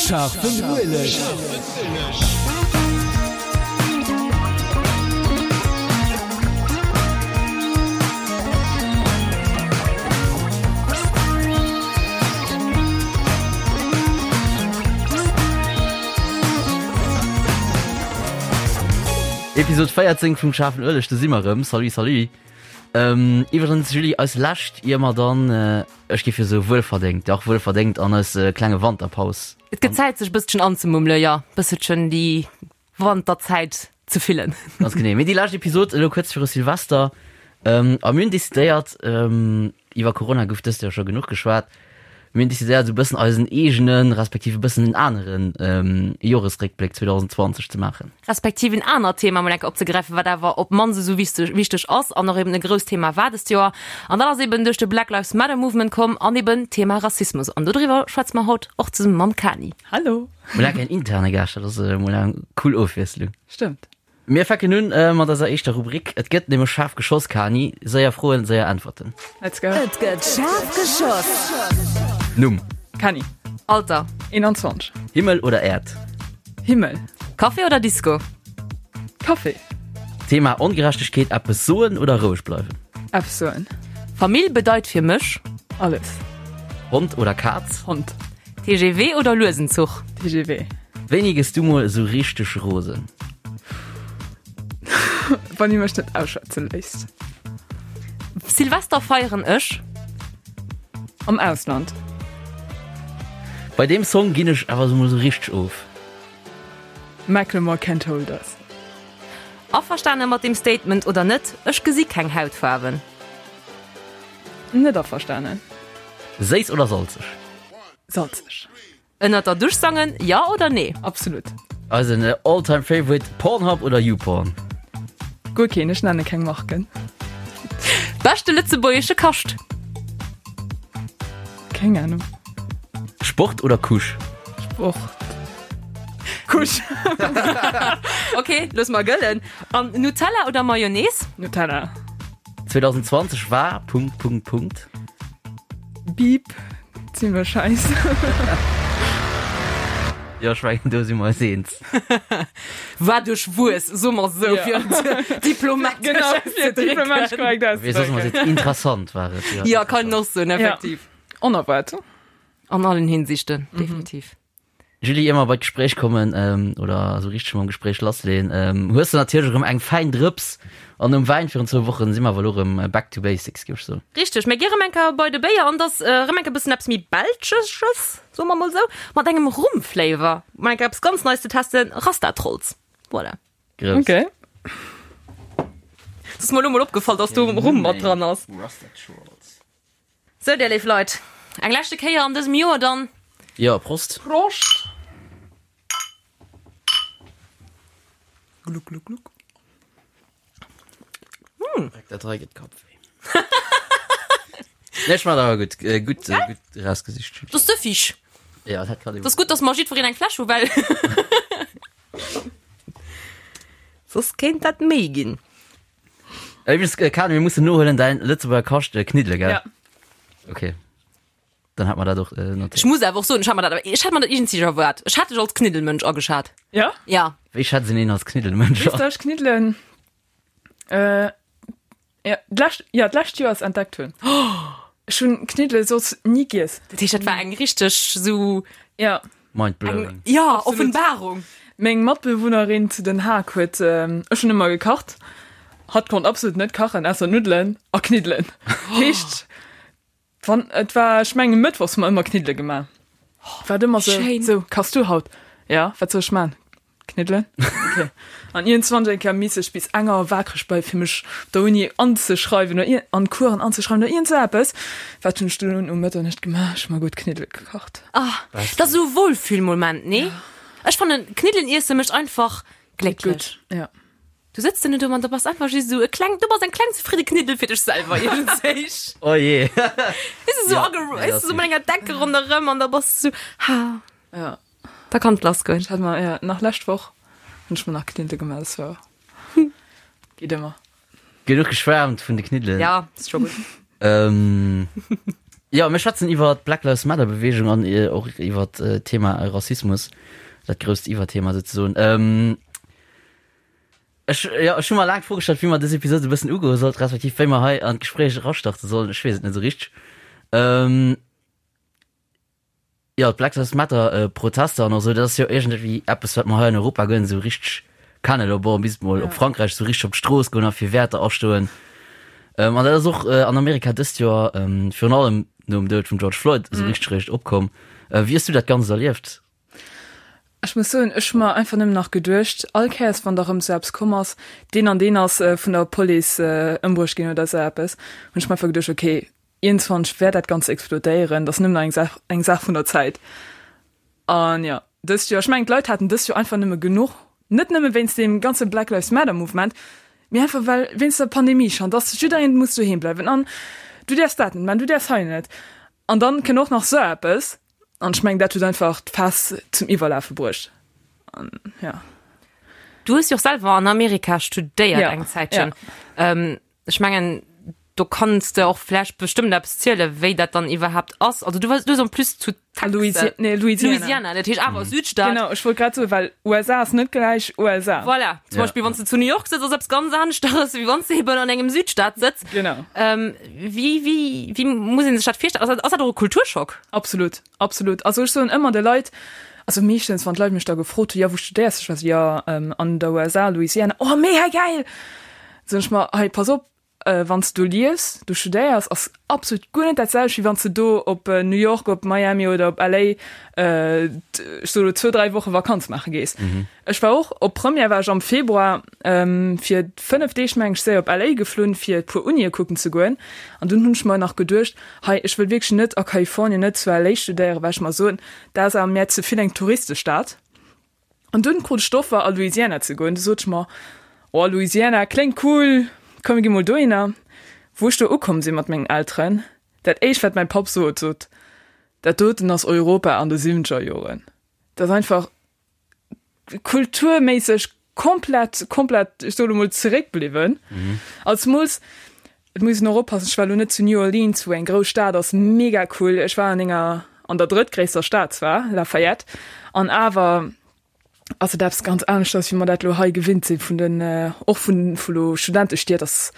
Scharfen Ueleg. Episode 14 vum Schaarfen Ueleg, do si mer erëm. Salut, salut. Ähm, iwwregens, Julie, eis lescht, ier mer dann, ech géif jo soe wuelverdéngt, dach wuelverdéngt an eis klenge Wanterpaus. Et gëtt Zäit sech e bësselchen anzemummele, jo, e bësselchen déi Wanterzäit ze fillen. Ganz genee. Mee déi lescht Episod elo kuerz viru Silvester. Ähm, a mir hunn decidéiert, ähm, iwwer Corona gouf dëst Joer scho genuch geschwat, mir hunn decidéiert, esou e bëssen eisen eegenen, respektiv e bëssen en aneren ähm, Joresréckbléck 2020 ze maachen. Respektiv en anert Thema mol eng Kéier opzegräifen, wat awer op d'mannst esou wichteg, wichteg ass an och eben e grousst Thema war dëst Joer. An dat ass eben duerch de Black Lives Matter Movement komm an eben d'Thema Rassismus. An dodriwwer schwätze mer haut och zesumme mam Kani. Hallo! Mol eng interne Gaascht, dat ass mol eng cool Ofwiesslung. Stëmmt. Mir fänken un mat eiser éischter Rubrik. Et gëtt nämlech schaarf geschoss, Kani. Séier Froen, séier Äntwerten. Let's go. Et gëtt schaarf geschoss. Numm. Kani. Alter. 21. Himmel oder Äerd? Himmel. Café oder Disco? Café. Thema Ongerechtegkeet, eppes soen oder roueg bleiwen? Eppes soen. Famill bedeit fir mech? Alles. Hond oder Kaz? Hond. TGV oder luesen Zuch? TGV. Wéini gëss du mol esou richteg rosen? Wann dir mech net ausschwätze léisst. Silvester feieren ech? Am Ausland. Bei deem Song ginn ech awer mol esou richteg of. Macklemore Can't Hold Us. Averstane mat deem Statement oder net, ech gesi keng Hautfaarwen. Net averstanen. Séiss oder salzeg? Salzeg. Ënnert der Dusch sangen, jo oder nee? Absolut. Eisen all time favorite, Pornhub oder YouPorn? Guer keen, ech nenne keng Marken. Beschte lëtzebuergesche Kascht? Keng Ahnung. Sport oder Couche? Sport. Couche. Ok, loosse mer gëllen. An Nutella oder Mayonnaise? Nutella. 2020 war Punkt Punkt Punkt. Beep, zimmlech scheiss. Jo, ech mengen do si mer eis eens. War duerchwuess, soe mer esou, fir et diplomatesch auszedrécken. Wéi soss mer seet, interessant war et. Jo, kann een och soen, effektiv. Onerwaart. An allen Hinsichten, definitiv. Julie, ier mer bei d'Gespréich kommen, oder esou richteg mam Gespréich lassleeën, hues de natierlech erëm eng fäin Drëps an nom Wäin virun zwou Wochen si mer awer elo erëm back to basics, géif ech soen. Richteg, mir gi erëm eng Kéier bei de Béier an et ass erëm eng Kéier e bëssen eppes méi Belschesches, soe mer mol esou, mat engem Rum-Flavor. Mol eng Kéier eppes ganz Neies ze testen, Rasta Trolls. Voilà. Grouss. Okay. Et ass mer elo mol opgefall, dass do Rum mat dran ass. Rasta Trolls. Sou, dir léif Leit, eng leschte Kéier an dësem Joer dann. Jo, Prost. Prost! Gluck, gluck, gluck. Dat hei gëtt Kappwéi. Nee, ech man awer gutt, gutt, gutt erausgesicht. Dat ass süffig. Ja, dat kann Dat ass gutt, dass mer jiddwereen eng Fläsch hu, well soss kéint dat méi ginn. Übrigens, äh, Karin, mir mussen nohuelen däin Lëtzebuerger Kascht äh, Kniddele, gell? Ja. Okay. Dann hat man dat och äh, notéiert. Ech muss awer och soen, ech hat mer dat, ech hat mer dat iergendwéi erwaart. Ech hat dech als Kniddelmënsch ageschat. Ja? Ja. Wéi schätzt een een als Kniddelmënsch Weess du, ech Kniddelen, äh, ja, d'lescht, ja, d'lescht Joer ass entdeckt hunn. Ech hunn Kniddele soss ni giess. Dat heescht, dat war eng richteg sou Ja. Mind blowing. Ja, Offenbarung. Meng Matbewunnerin zu Den Haag huet, ech hunn ëmmer gekacht, hatt konnt absolut net kachen, ausser Nuddelen a Kniddelen. Heescht, wann, et war, ech mengen mëttwochs hu mer ëmmer Kniddele gemaach. War et ëmmer sou, sou, kachs du haut? Ja, wat soll ech man? Kniddelen? Okay. An iergendwann eng Kéier misst ech bis eng Auer waakreg bleiwen, fir mech op der Uni anzeschreiwen oder an Coursen anzeschreiwen oder iergend sou eppes. Wat hunn ech dunn um Mëtternuecht gemaach? Ech hu mer gutt Kniddele gekacht. Ah, dat ass esou e Wohlfühlmoment, nee? Ech fannen, Kniddelen iesse mécht einfach glécklech. Gutt, ja. Du sëtz dann do an da bass einfach just esou e kleng, du bass eng kleng zefridde Kniddel fir dech selwer iergendwéi. Oh je. Weess du, sou Ja, ageru, nee, weess dat du, sou mat enger Decke ronderëm an da bass du sou, ha. Ja. Da kann et lass goen. Ech hat mer, ja, nach lescht Woch hunn ech mer nach Kniddele gemaach, das war geet ëmmer. Genuch geschwärmt vun de Kniddelen. Ja, ist scho gutt. Ähm, Jo, mir schwätzen iwwer d'Black Lives Matter Beweegung an och iwwer d'Thema Rassismus, dat grousst Iwwerthema souzesoen. Ech, jo, ech hu mer laang d'Fro gestallt, wéi mer dës Episod e bëssen ugoe sollt, respektiv wéi mer hei an d'Gespréich erastarte sollen. Ech weess et net esou richteg. Jo, d'Black Lives Matter Protester an och esou, dat ass jo iergendwéi eppes, wat mer hei an Europa guer net esou richteg kennen. Elo bon, bis mol op Frankräich esou richteg op d'Strooss goen a fir Wäerter astoen. An dat ass och an Amerika dëst Joer virun allem nom Doud vum George Floyd esou richteg réischt opkomm. Wéi hues du dat Ganzt erlieft? Ech muss soen, ech hu mer einfach nëmmen nach geduecht, all Kéiers wann da rëm esou eppes komm ass, deen an deen ass vun der Police ëmbruecht ginn oder esou eppes, hunn ech mer einfach geduecht, okay, Iergendwann wäert dat Ganzt explodéieren, dat ass nëmmen nach eng Saach, eng Saach vun der Zäit. An jo, dëst Joer, ech mengen d'Leit haten dëst Joer einfach nëmme genuch, net nëmme wéinst deem ganze Black Lives Matter Mouvement, mee einfach well wéinst der Pandemie schonn, dass jiddereen muss doheem bleiwen an du däerfs dat net man, du däerfs hei net. An dann kënnt och nach sou eppes an ech mengen dat huet einfach d'Faass zum Iwwerlafe bruecht. An jo. Du hues jo och selwer an Amerika studéiert eng Zäitchen. Ja. Ech mengen, do kanns de och vläicht bestëmmt eppes zielen, wéi dat dann iwwerhaapt ass. Also du wars, du hues en plus zu Texas, Louisi nee, Louisiana. Louisiana, dat heescht awer Südstaat. Genau, ech wollt grad soen, well USA ass net gläich USA. Voilà, zum Ja. Beispill wann s de zu New York sëtz, ass eppes ganz aneschteres, wéi wann s de eben an engem Südstaat sëtz. Genau. Ähm, wéi, wéi, wéi muss een sech dat virstellen? Ass dat, ass dat och e Kulturschock? Absolut, absolut. Also ech soen ëmmer de Leit, also meeschtens wann d'Leit mech da gefrot hunn, jo wou studéiers du? Ech war esou, jo an der USA, Louisiana. Oh mega gäil! Soen ech mer, hei pass op, wann s de do liefs, do studéiers, ass absolut guer net dat selwecht, wéi wann s de do op New York, op Miami oder op LA, ech soe lo zwou, dräi Woche Vakanz maache gees. Ech war och, op Première war ech am Februar fir 5 Deeg, meng ech, séier op LA geflunn, fir e puer Unie kucken ze goen. An dunn hunn ech mer nach geduecht, hei ech wëll wierklech net a Kalifornien, net zu LA studéieren, well ech mer soen, dat ass awer mär ze vill eng Touristestad. An dunn krut ech d'Offer a Louisiana ze goen. Du sot ech mer, oh Louisiana kléngt cool, komm mir gi mol dohinner. Wou ech do ukomm sinn mat mengen Elteren, dat éischt wat mäi Papp sot, sot, dat doten ass Europa an de siwwenzeger Joren. Dat ass einfach kulturméisseg komplett, komplett, ech soe lo mol zeréckbliwwen. An zemools, Et muss een och oppassen, ech war elo net zu New Orleans, wou eng grouss Stad ass, mega cool. Ech war an enger, an der drëttgréisster Stad zwar, Lafayette, an awer ass et eppes ganz aneschters, wéi mer dat elo hei gewinnt sinn vun den, och vun, vu lo Studentestied, ass,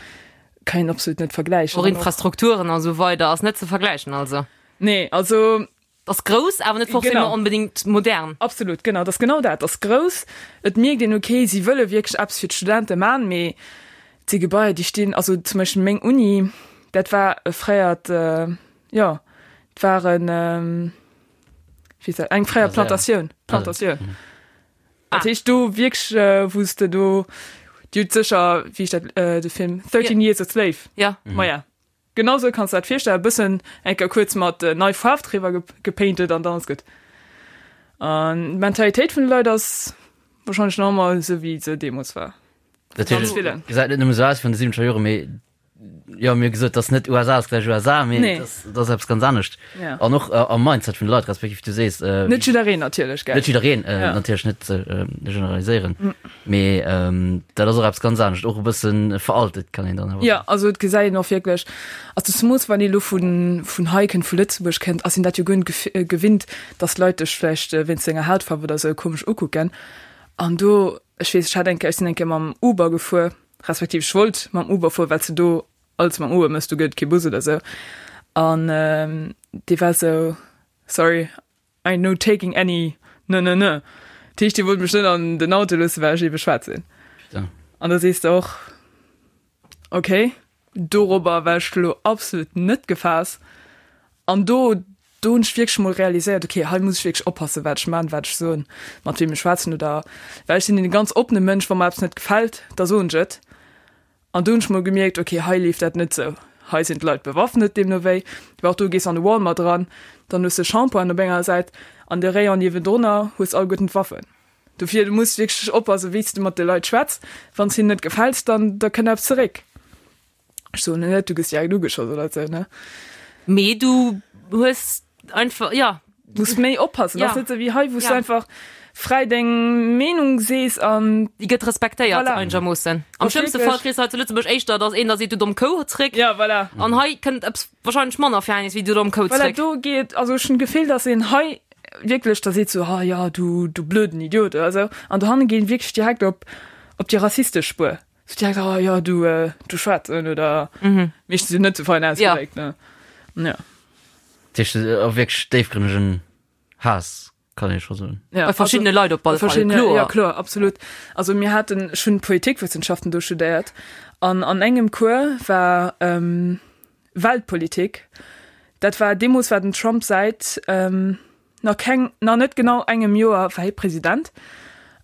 kann een absolut net vergläichen. Och Infrastrukturen a sou weider ass net ze vergläichen also. Nee, also Ass grouss, awer net forcément Genau. onbedéngt modern. Absolut, genau, dat ass genau dat. Ass grouss, et mierkt een, okay, si wëlle wierklech eppes fir d'Studente man, mee et si Gebaier, déi stinn, also zum Beispill meng Uni, dat war e fréiert, jo, et war en, wéi heescht dat, eng fréier Kasär. Plantatioun, Plantatioun. Dat heescht do wierklech, wou s de do, Dir hutt sécher, wéi heescht dat, de Film, 13 Years a Slave? Ja. Maja. Genau sou kanns de dat virstellen, e bëssen eng Kéier kuerz mat nei Faarf driwwer gepainted an dann ass gutt. An d'Mentalitéit vun de Leit ass wahrscheinlech nach ëmmer esou wéi se deemools war. Dat Ganz heescht, villen. et gesäit net nëmme sou aus wéi an de siwwenzeger Joren, mee jo, mir hu gesot, dass net USA ass gläich USA, mee Nee. dass dat ass eppes ganz anescht. Ja. An och am Mindset vun de Leit, respektiv du sees, Net jiddereen natierlech, gell? Net jiddereen, Ja. natierlech net generaliséieren. Mee dat ass och eppes ganz anescht, och e bësse veraltet kann een dann awer Jo, soen. also et gesäit een och wierklech, also zemools wann ee lo vun vun hei kënnt, vu Lëtzebuerg kënnt, ass een dat jo guer net gewinnt, datt Leit dech vläicht wéinst denger Hautfaarf oder esou komesch ukucken. An do, ech weess, ech hat eng Kéier, ech sinn eng Kéier mam Uber gefuer, respektiv ech wollt mam Uber fueren, well s de do alles mam Uber méchs, do gëtt et kee Bus oder esou. An dee war esou, sorry, I no taking any ne ne ne. Dat heescht, déi wollte mech net an den Auto loossen, well ech ebe schwaarz sinn. Putain. An da sees de och, okay, dorobber war ech lo absolut net gefaass. An do, do hunn ech wierklech mol realiséiert, okay, hei muss ech wierklech oppassen, wat ech man, wat ech soen, mat weem ech schwätzen oder, well ech sinn e ganz oppene Mënsch, wa mer eppes net gefält, da soen ech et. An do hunn ech mol gemierkt, ok, hei leeft dat net sou, hei sinn d'Leit bewaffnet, deemno wéi. Well och do gees an de Walmart eran, dann hues de Shampointen op enger Säit an de Rayon niewendrunner hues alleguerten d'Waffen. Dofir, du muss wierklech oppassen, wéi s de mat de Leit schwätz. Wann s hinnen net gefäls, dann da kënnt eppes zeréck. Ech soen net, du gëss direkt ugeschoss oder sou, ne? Mee du hues einfach, jo. Muss méi oppassen. Ja. Ass net sou wéi hei, wou s Ja. du einfach fräi deng Meenung sees an Déi gëtt respektéiert Voilà. einegermoossen. Am Ass schlëmmste wierklech- Fall kriss du hei zu Lëtzebuerg éischter, dass een da seet, du domm Kou zréck. ja, voilà. An hei kënnt eppes wahrscheinlech manner Fernes wéi du domm Kou Voilà, zréck. do geet, also ech hunn d'Gefill, dass een hei wierklech da seet sou, ah ja, du, du blöden Idiot oder sou. An dohanne geet wierklech direkt op, op déi rassistesch Spuer. Sou direkt, ah ja, du, äh, du Schwaarzen oder meeschtens jo net sou fein ausgedréckt, ne. Ja. Dat heescht, och wierklech déifgrënnegen Haass, kann ee scho soen. Ja, Bei verschiddene Leit op alle Fall, verschiddene, kloer. Ja, kloer, absolut. Also mir haten, ech hunn Politikwëssenschaften do studéiert an an engem Cours war ähm, Weltpolitik. Dat war, deemools war den Trump säit ähm, nach keng, nach net genau engem Joer war hie President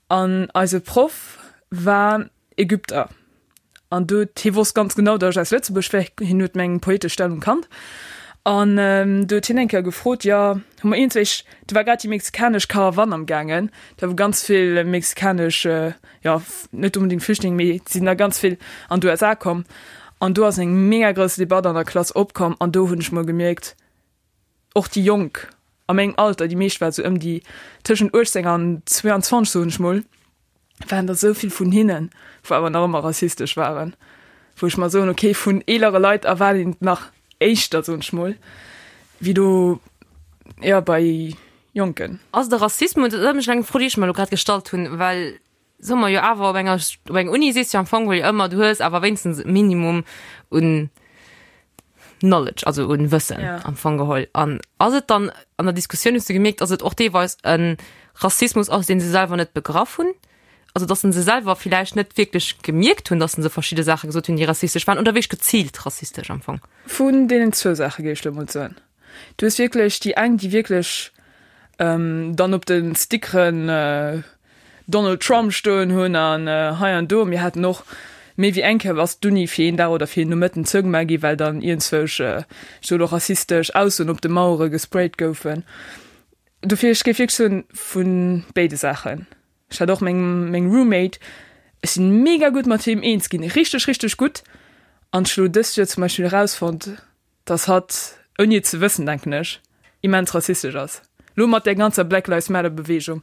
an eise Proff war Ägypter. An do huet, hie wosst ganz genau, datt ech aus Lëtzebuerg wär, hien huet meng poetesch Stellung kannt. An do huet hien eng Kéier gefrot, jo, hu mer iergendwéi, do war grad déi mexikanesch Karawann am gaangen, do wou ganz vill mexikanesch, jo, net onbedéngt Flüchtlinge, mee et sinn der ganz vill an d'USA komm. An do ass eng mega grouss Debatt an der Klass opkomm an do hunn ech mol gemierkt, och déi Jonk a mengem Alter, déi meescht war sou ëm déi tëschent 18 an 22, soen ech mol, waren der esou vill vun hinnen, wou awer nach ëmmer rassistesch waren, wou ech mer soen, okay, vun eelere Leit erwaart een et nach éischter, soen ech mol, wéi do, jo, bei Jonken. Ass de Rassismus, dat ass eng Fro, déi ech mer elo grad gestallt hunn, well soe mer jo awer op enger op enger Uni sees du am Fong jo ëmmer, du hues awer wéinstens e Minimum un Knowledge, also un Wëssen Ja. am Fong geholl. An ass et dann an der Diskussioun hues du gemierkt, dass et och deelweis e Rassismus ass, deen se selwer net begraff hunn? Also dass se selwer villäicht net wierklech gemierkt hunn, dass se verschidde Saache gesot hunn, déi rassistesch waren oder wierklech geziilt rassistesch am Fong? Vun deenen zwou Saache géif ech elo mol soen. Du hues wierklech déi eng, déi wierklech dann op de Stickeren Donald Trump stoen hunn an hei an do. Mir haten och méi wéi eng Kéier ass d'Uni fir een Dag oder fir een Nomëtten zougemaach gi well dann iergendzwousch, ech soe lo rassistesch Aussoen op de Mauere gesprayt goufen. Dofir, ech géif wierklech soen, vu béide Saachen. Ech hat och meng meng Roommate, ech sinn mega gutt mat him eens ginn, richteg richteg gutt an ech hu lo dëst Joer zum Beispill erausfonnt, dass hatt, ouni et ze wëssen, denken ech, immens rassistesch ass. Lo mat där ganzer Black Lives Matter Beweegung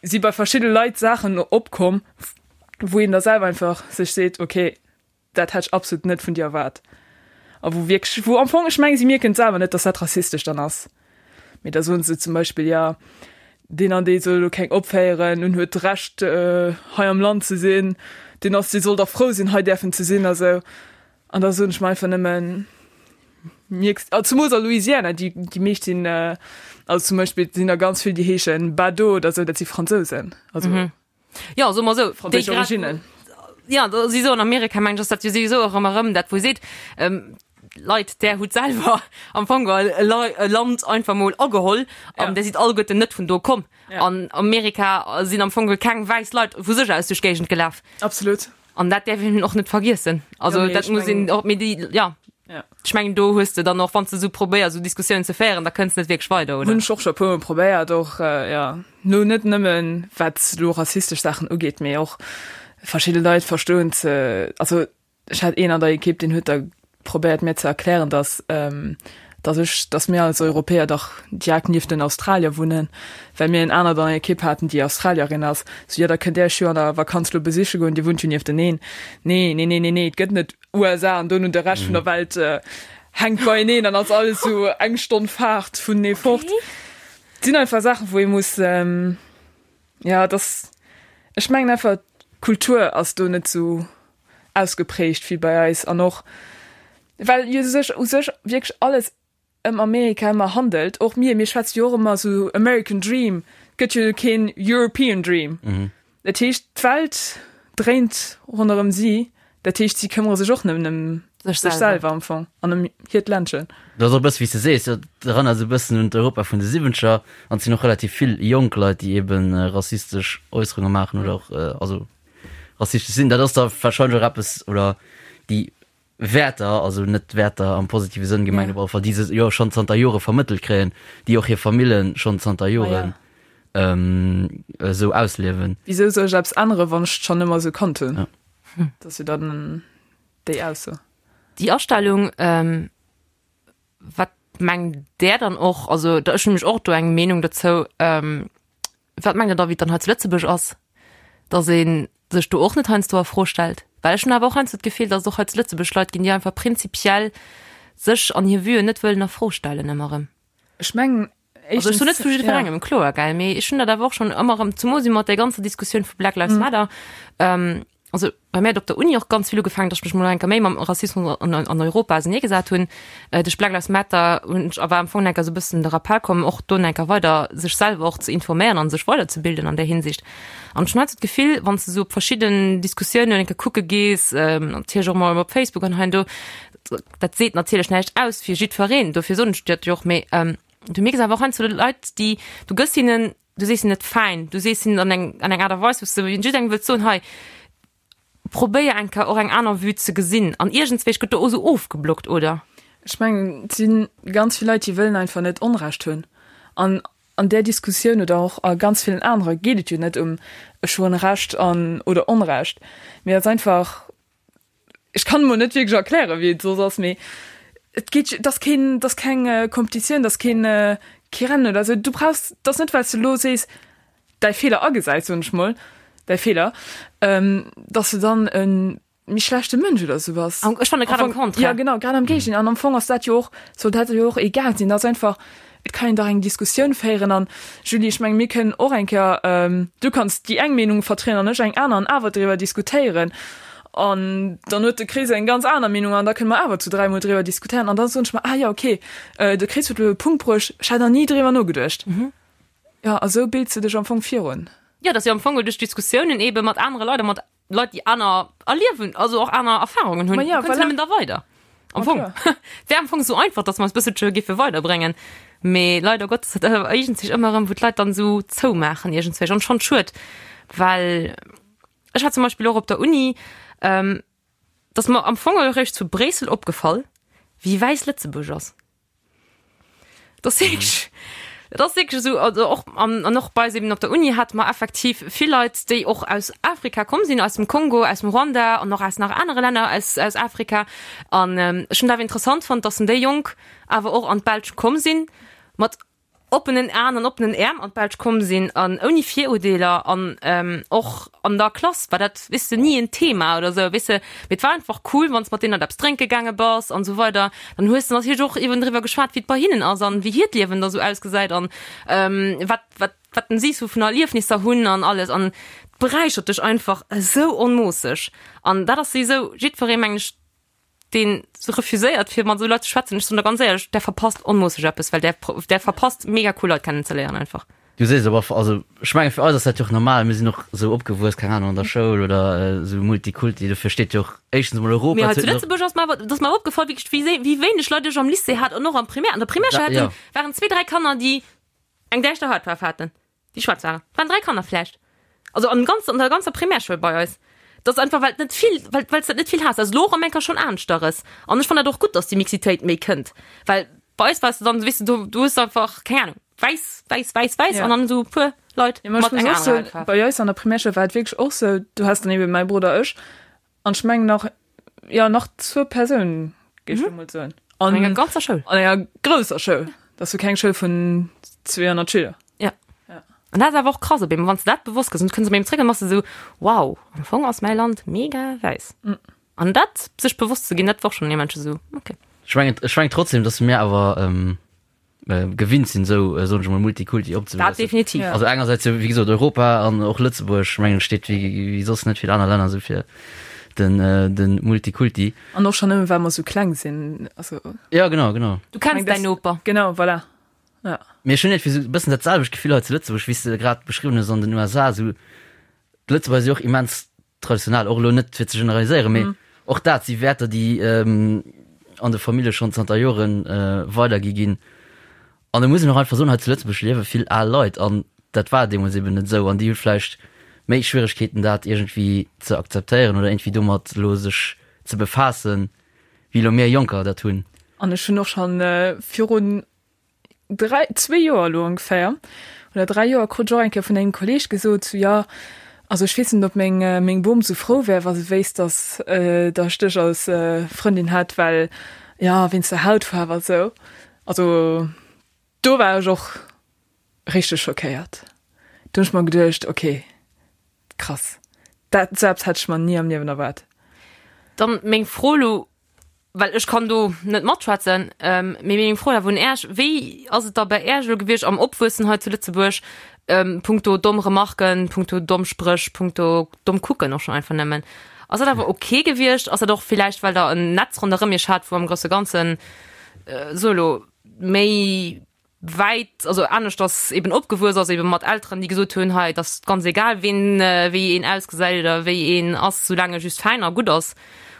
si bei verschidde Leit Saachen opkomm, wou een da selwer einfach sech seet, ok, dat hätt ech absolut net vun dir erwaart. A wou wierklech, wou am Fong, ech mengen, si mierken et selwer net, dass dat rassistesch dann ass. Mee da soen se zum Beispill, jo, deen an dee soll elo keng opféieren, en huet d'Recht hei am Land ze sinn, deen ass, dee soll dach frou sinn, hei däerfen ze sinn a sou. An da soen ech mer einfach nëmmen, mierks, ah, zemools a Louisiana, déi, déi meescht sinn, also zum Beispill sinn der ganz vill, déi heeschen Bado oder sou, dat si Fransousen, also mhm. Ja, so mal so, franséisch Originnen. Ja, da si so an Amerika meng ech, ass dat jo souwisou och ëmmer erëm dat, wou seet, ähm, Leit, där hutt selwer am Fong geholl e Lei- e Land einfach mol ageholl an Ja. där sidd alleguerten net vun do komm. Ja. An Amerika sinn am Fong geholl keng wäiss Leit vu sech aus duerch d'Géigend gelaf. Absolut. An dat däerf een och net vergiessen. Also Ja, mee dat ech muss een mengen- och, mee déi, ja. Ja. Ech mengen do hues de dann och, wann s de esou probéiers esou Diskussiounen ze féieren, da kënns de net wierklech weider, oder? Hunn ech och scho e puermol probéiert, och ja, lo net nëmmen wat lo rassistesch Saachen ugeet, mee och verschidde Leit verstoen ze, also ech hat een an der Ekipp, deen huet da probéiert mir ze erklären, dass dass ech, dass mir als Europäer dach direkt nieft den Australier wunnen, well mir en anert an der Ekipp haten, déi Australierin ass. Sou, jo, da kënnt Där iech jo an der Vakanz lo besiche goen, Dir wunnt jo niefteneen. Nee, nee, nee, nee, nee, et gëtt net USA an dono de Rescht vun der Welt hänkt beieneen an ass alles sou eng Stonn Faart vunenee fort. Et sinn einfach Saachen, wou ee muss, ja, dass, ech mengen einfach, d'Kultur ass do net sou ausgeprägt wéi bei eis an och well jo sech u sech wierklech alles ëm Amerika ëmmer handelt. Och mir, mir schwätze jo och ëmmer sou American Dream, et gëtt jo keen European Dream. Dat heescht d'Welt dréint ronderëm si, dat heescht si këmmere sech och nëmmen ëm Sech sech selwer. selwer am Fong an ëm hiert Ländchen. Dat ass och e bësse wéi s de sees, dat erënnert esou e bëssen un d'Europa vun de Siwwenzeger an et sinn och relativ vill jonk Leit, déi ebe rassistesch Äusserunge maachen oder och also rassistesch sinn. Dat ass da wahrscheinlech och eppes oder déi Wäerter, also net Wäerter am positive Sënn gemengt, op alle Fall, déi se jo schonn zanter Jore vermëttelt kréien, déi och hir Famillen schonn zanter Joren esou ausliewen. Wisou soll ech eppes änneren, wann ech et schonn ëmmer esou kannt hunn? Ja. Dat ass jo dann déi Ausso. Déi Astellung, wat. mengt där dann och, also da ech hunn nämlech och do eng Meenung dozou, wat mengt der da wéi et dann hei zu Lëtzebuerg ass, datt ee sech do och net heiansdo a Fro stellt? Well ech hunn awer och heiansdo d'Gefill, datt et och hei zu Lëtzebuerg Leit ginn, déi einfach prinzipiell sech an hir Vuen net wëllen a Fro stellen ëmmer erëm. Ech mengen Also ech soen net vu jiddwerengem, kloer, gell, mee ech hunn dat awer och schonn ëmmer erëm, zemoos mat där ganzer Diskussioun vu Black Lives Matter, also bei mir hat op der Uni och ganz vill ugefaangen, datt ech mech mol eng Kéier méi mam Rassismus an an Europa auserneegesat hunn. Duerch Black Lives Matter hunn ech awer am Fong eng Kéier esou e bëssen de Rappell komm, och do eng Kéier weider sech selwer och ze informéieren an sech weiderzebilden an där Hinsicht. An ech hunn halt esou d'Gefill, wann s de esou op verschidden Diskussiounen eng Kéier kucke gees, natierlech och mol op Facebook an hei an do, dat seet natierlech näischt aus fir jiddwereen, dofir soen ech dat jo och, mee du mierks awer och heiansdo Leit, déi, du gëss hinnen, du sees hinnen net fäin, du sees hinnen an eng, an eng Aart a Weis, wou s de jidderengem wëlls soen, hei, probéier eng Kéier och eng aner Vue ze gesinn an iergendswéi gëtt do och esou ofgeblockt, oder? Ech mengen, et si ganz vill Leit, déi wëllen einfach net Onrecht hunn an an där Diskussioun oder och a ganz villen anere geet et jo net ëm ech hunn Recht an oder Onrecht, mee et ass einfach, Ech kann emol net wierklech erklären, wéi et soss ass, mee et geet, et ass keen, et ass keng Kompetitioun, et ass keen, kee Rennen oder esou. Du brauchs, et ass net, well s de elo sees, däi Feeler agesäis, soen ech mol, däi Feeler, dass de dann e méi schlechte Mënsch oder esou bass. Ech fanne grad am Contraire. Jo, genau, grad am Géigendeel. An am Fong ass dat jo och, soll dat jo och egal sinn. Et ass einfach, Et kann een dach eng Diskussioun féieren an, Julie, ech mengen, mir kënnen och eng Kéier, du kanns déi eng Meenung vertrieden an ech eng aner an awer driwwer diskutéieren an dann huet de Chris eng ganz aner Meenung an da kënne mer awer zu dräimol driwwer diskutéieren an da soen ech mer, ah jo, okay, de Chris huet elo e Punkt bruecht, ech hat nach ni driwwer nogeduecht. Jo, a sou bilds de dech am Fong virun. Jo, et ass jo am Fong duerch Diskussiounen eebe mat anere Leit a mat Leit, déi aner erliewen, also och aner Erfahrungen hunn, ja, voilà. nëmmen da weider. Am Fong. Wär am Fong so einfach, dass mer eis bësselche giffe weiderbréngen. Mee leider Gottes hat awer iergendzwich ëmmer erëm, wou d'Leit dann esou zoumaachen iergendzwich an schonn schued, well ech hat zum Beispill och op der Uni, ähm, dass mer am Fong eréischt zu Bréissel opgefall, wéi wäiss Lëtzebuerg ass. Das wierklech, dat ass wierklech esou, also och an, an och bei eis eben op der Uni hate mer effektiv vill Leit, déi och aus Afrika komm sinn, aus dem Kongo, aus dem Ruanda an och aus nach anere Länner aus, aus Afrika. An ech hunn dat awer interessant fonnt, dass déi Jonk awer och an d'Belsch komm sinn mat oppenen Aen an oppenen Äerm an d'Belsch komm sinn an ouni Virurdeeler an och an der Klass war dat, weess de, ni en Thema oder sou, weess de. Mee et war einfach cool, wann s mat deenen eppes drénke gaange bass an esou weider, dann hues de natierlech och eben driwwer geschwat, wéi et bei hinnen ass an wéi hiert Liewen da sou ausgesäit an wat, wat, wat si sou vun Erliefnisser hunn an alles an et beräichert dech einfach esou onmoosseg an dat ass souwisou jiddweree, mengen ech, deen se refuséiert fir mat esou Leit ze schwätzen, ech soen der ganz éierlech, där verpasst onmoosseg eppes, well där där verpasst mega cool Leit kennen ze léieren einfach. Du sees awer, also ech menge fir eis ass dat jo och normal, mir sinn och esou opgewuess, keng Ahnung, an der Schoul oder esou Multikulti, dofir steet jo och éischtens emol Europa, Mee hei zu Lëtzebuerg ass mer awer, et ass mer awer opgefall wierklech wéi wéi wéineg Leit ech am Lycée hat an och am Primaire, an der Primärschoul haten, waren zwee, dräi Kanner déi eng däischter Hautfaarf haten. Déi schwaarz waren. Et waren 3 Kanner vläicht. Also am ganzen, an der ganzer Primärschoul bei eis. Dat ass einfach, well et net vill, well, well s dat net vill has. Dat ass elo och am Enker schonn aneschteres. An ech fannen dat och gutt, dass déi Mixitéit méi kënnt. Well bei eis wars de dann, weess de, do, du hues einfach, keng Ahnung, wäiss, wäiss, wäiss, wäiss Ja. an dann esou e puer Leit Ja, ma ech mat muss enger och anerer soen, Hautfaarf. bei eis an der Primärschoul war et wierklech och sou, du has dann eben mäi Brudder, ech an ech mengen nach, jo, nach zwou Persounen, géif ech elo mol soen. An enger ganzer Schoul. An enger grousser Schoul. Dat ass jo keng Schoul vun 200 Schüler. Ja. An dat ass awer och krass op eemol, wann s de dat bewosst gëss an du kënns op eemol zréck an bass de esou, wow, am Fong ass mäi Land mega wäiss. An dat sech bewosst ze ginn, dat war och schonn immens esou, okay. Ech mengen, ech mengen trotzdem, dass mir awer gewinnt sinn, esou, soen ech emol, Multikulti Dat opzewuessen. definitiv. Ja. Also engersäits jo, wéi gesot, Europa an och Lëtzebuerg, mengen ech, steet wéi, wéi soss net vill aner Länner esou fir den, den Multikulti. An och schonn nëmmen, well mer esou kleng sinn, also. Ja, genau, genau. Du kenns däin Noper. Genau, voilà. Ja. Mee ech hunn iergendwéi esou e bëssen dat selwecht Gefill hei zu Lëtzebuerg, wéi s de grad beschriwwen hues an den USA. Esou, d'Lëtzebuerger si och immens traditionell, och elo net fir ze generaliséieren, mee och dat si Wäerter, déi an de Famillje schonn zanter Jore weidergi ginn. An da muss een och einfach soen, hei zu Lëtzebuerg liewe vill al Leit an dat war deemools eben net esou an déi hu vläicht méi Schwieregkeeten, dat iergendwéi ze akzeptéieren oder iergendwéi domat elo sech ze befaassen, wéi elo mir Jonker dat hunn. An ech hunn och schonn virun 3, zwee Joer elo ongeféier, oder 3 Joer, krut ech och eng Kéier vun engem Kolleeg gesot, sou, jo, also ech weess net, ob meng, meng Bom sou frou wär, wa se wéisst, dass, dass ech dech als Frëndin hätt, well, jo, wéinst der Hautfaarf a sou. Also do war ech och richteg schockéiert. Do hunn ech mer geduecht, okay, krass, dat selbst hätt ech mer ni am Liewen erwaart. Dann meng Fro elo, well ech kann do net matschwätzen, mee meng Fro awer un Äech, Wéi ass et da bei Äech elo gewiescht am Opwuessen hei zu Lëtzebuerg, punkto domm Remarken, punkto domm Spréch, punkto domm Kucken och schonn einfach nëmmen? Ass dat awer ok gewiescht? Ass dat och villäicht, well Der en Netz ronderëm Iech hat, wou am grousse Ganzen, so elo, méi wäit, also aneschters eben opgewuess ass, eben mat Elteren, déi gesot hunn, hei, et ass ganz egal, ween, wéi een ausgesäit oder wéi een ass, soulaang e just fäin a gutt ass?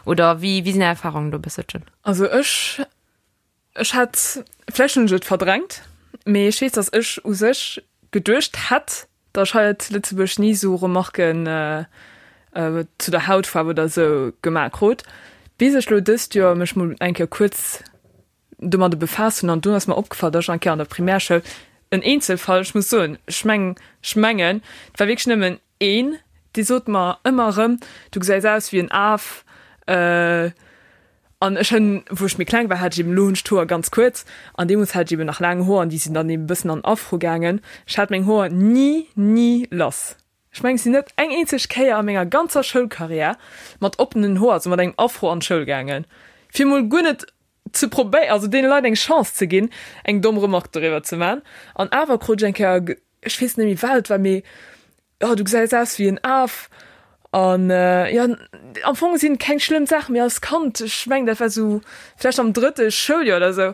Oder wéi, wéi sinn Är Erfahrungen do e bësselchen? Also ech, ech hätt, vläicht hunn ech et verdrängt, mee ech weess, datt ech u sech geduecht hätt, datt ech hei zu Lëtzebuerg ni esou Remarken zu der Hautfaarf oder esou gemaach krut, bis ech lo dëst Joer mech mol eng Kéier kuerz domadde befaasst hunn an dunn ass mer opgefall, dass ech eng Kéier an der Primärschoul, en Eenzelfall, ech muss soen, ech meng, ech mengen, et war wierklech nëmmen een, dee sot mer ëmmer erëm, du gesäis aus wéi en Af. An ech hunn, wou ech méi kleng war, hat ech eben, elo hunn ech d'Hoer ganz kuerz, an deemools hat ech eben nach laang Hoer an déi sinn dann eben e bëssen an Afro gaangen. Ech hat meng Hoer ni, ni lass. Ech mengen, ech sinn net eng eenzeg Kéier a menger ganzer Schoulkarriär mat oppenen Hoer, also mat engem Afro an d'Schoul gaangen, fir mol guer net ze probéieren, also deene Leit eng Chance ze ginn, eng domm Remarque doriwwer ze man. An awer krut ech eng Kéier, ech weess net méi wat et war, mee oh du gesäis aus wéi en Af. An jo, am Fong sinn et keng schlëmm Saachen, mee als Kand, ech mengen dat war sou vläicht am drëtte Schouljoer oder sou,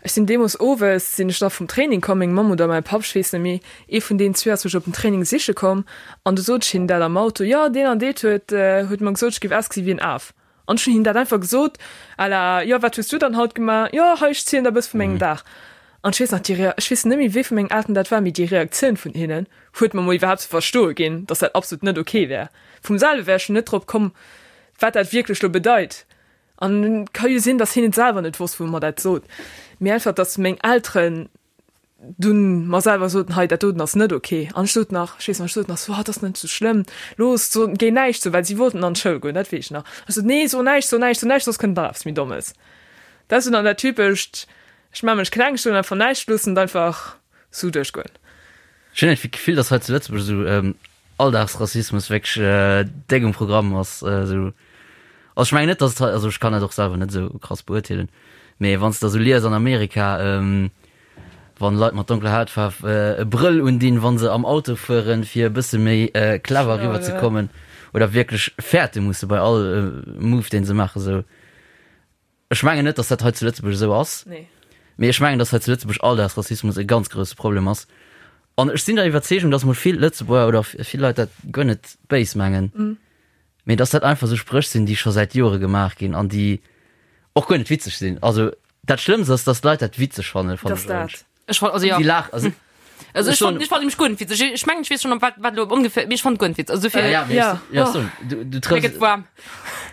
ech sinn deemools owes sinn ech da vum Training komm, meng Mamm oder mäi Papp, ech weess net méi, ee vun deenen zwee ass mech op den Training siche komm an du sot ech hinnen dat am Auto, jo deen an deet huet huet mer gesot, ech géif ausgesi wéi en Af. An ech hunn him dat einfach gesot à la, jo, wat hues du dann haut gemaach? Jo, hei, ech zielen der e bësse vu mengem Dag. An ech weess nach, déi Rea, ech weess net méi, wee vu mengen Elteren dat war, mee déi Reaktioun vun hinnen huet mer mol iwwerhaapt ze verstoe ginn, dass dat absolut net ok wär. Vum selwe wär ech jo net drop komm, wat dat wierklech lo bedeit. An et ka jo sinn, dass hien et selwer net wosst, wou e mer dat sot, mee einfach, dass meng Elteren dunn mer selwer soten, hei dat doten ass net ok. An ech sot nach, ech weess nach, ech sot nach so, ah, dat ass net sou schlëmm, looss, so, géi näischt soen, well si wollten an d'Schoul goen, dat weess ech nach. Ech sot, nee, so näischt, so näischt, so näischt, soss kënnt nach eppes méi Dommes. Dat ass dunn an dat typescht, ech maache mech kleng, ech soen einfach näischt, loossen et einfach sou duerchgoen. Ech hunn iergendwéi d'Gefill, dass hei zu Lëtzebuerg esou Alldagsrassismus wierklech déck um Programm ass. Esou, also ech mengen net, dass et hei, also ech kann dat och selwer net esou krass beurteelen, mee wann s de da sou lies an Amerika, wann Leit mat donkeler Hautfaarf e Brëll undinn, wann se am Auto fueren, fir e bësse méi clever eriwwer ze kommen oder wierklech fäerte musse bei all Move, deen se maachen, esou. Ech mengen net, datt dat hei zu Lëtzebuerg esou ass. Nee. Mee ech mengen, datt hei zu Lëtzebuerg Alldagsrassismus e ganz grousse Problem ass. An ech sinn der Iwwerzeegung, datt mol vill Lëtzebuerger oder vill Leit dat guer net béis mengen, mee datt dat einfach esou Spréch sinn, déi scho säit Jore gemaach ginn an déi och guer net witzeg sinn. Also dat Schlëmmst ass, datt d'Leit dat witzeg fannen, fannen Dass dat. Ech fand, also ja. Si laach, also Also ech fand, ech fand nämlech guer net witzeg. Ech mengen, ech weess schon, wat, wat elo ongeféier, mee ech fand guer net witzeg. Also dofir, Ja, mee Ja. ech, ja, so, du, du mir trëffs, gëtt waarm.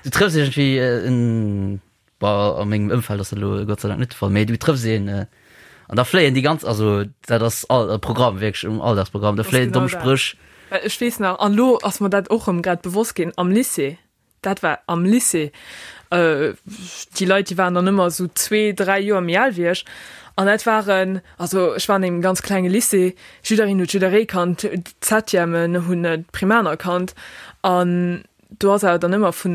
du trëffs iergendwéi en, bah, a mengem Ëmfeld ass dat elo Gott sei Dank net de Fall, mee du trëffs een an da fléien déi ganz, also dat ass all e Programm, wierklech um Alldagsprogramm, da Das fléien genau domm dat. Spréch. Well ech weess nach, an elo ass mer dat och erëm grad bewosst ginn, am Lycée, Dat war am Lycée. Déi Leit, déi waren dann ëmmer esou zwee, dräi Joer méi al wéi ech. An dat waren, also ech war an engem ganz klenge Lycée, jiddereen huet jidderee kannt, d'Septièmen hunn d'Primaner kannt. An do ass awer dann ëmmer vu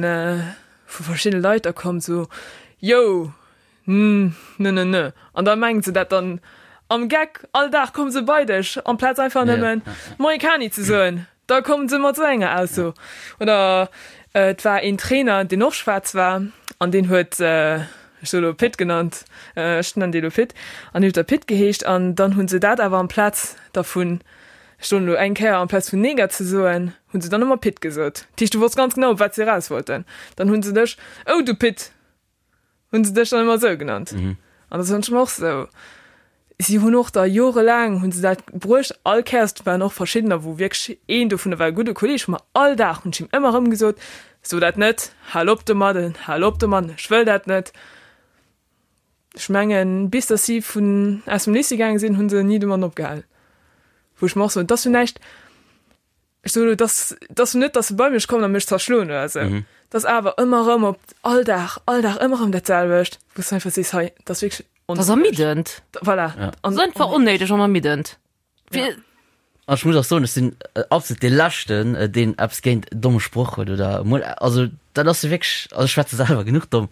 vu verschiddene Leit da komm, esou, Yo, n, ne, ne, ne. An da mengen se dat dann am Geck, all Dag komme se bei dech, amplaz einfach nëmmen Moie Kani ze soen. Da kommen se mat esou enger Ausso. Oder et war een Trainer, deen och schwaarz war an deen huet, ech soe lo Pit genannt, ech nennen dee lo Pit, an deen huet da Pit geheescht. An dann hu se dat awer amplaz dervun, ech soen elo eng Kéier, amplaz vun Neger ze soen, hu se dann ëmmer Pit gesot. Dat heescht, du wosst ganz genau, op wat se eraus wollten. Dann hu se dech, Oh du Pit! Hunn se dech dann ëmmer esou genannt? Mhm. An dat hunn ech mer och sou. Si hunn och da jorelaang hunn se dat bruecht, all Kéiers, et waren och verschiddener, wou wierklech een dovunner war e gudde Kolleeg vu mer, all Dag hunn ech him ëmmer erëm gesot, So dat net, hal op domadden, hal op domadden, ech wëll dat net. Ech mengen, bis datt si vun aus dem Lycée gaange sinn, hu se ni domadden opgehal. Wou ech mer och soen, et ass jo näischt, Ech soen elo, dass, dass net, dass se bei mech kommen a mech zerschloen oder esou. Mhm. Dass awer ëmmer erëm op all Dag, all Dag ëmmer erëm dat selwecht, wou s du einfach sees, hei, dat ass wierklech. Dat ass ermiddend. Voilà. Ja. Dat ass einfach onnéideg an ermiddend. Ja. An ech muss och soen, ech sinn absolut dee Leschten, deen eppes géint domme Sproch huet oder emol, also dat ass jo wierklech, also ech schwätze selwer genuch domm.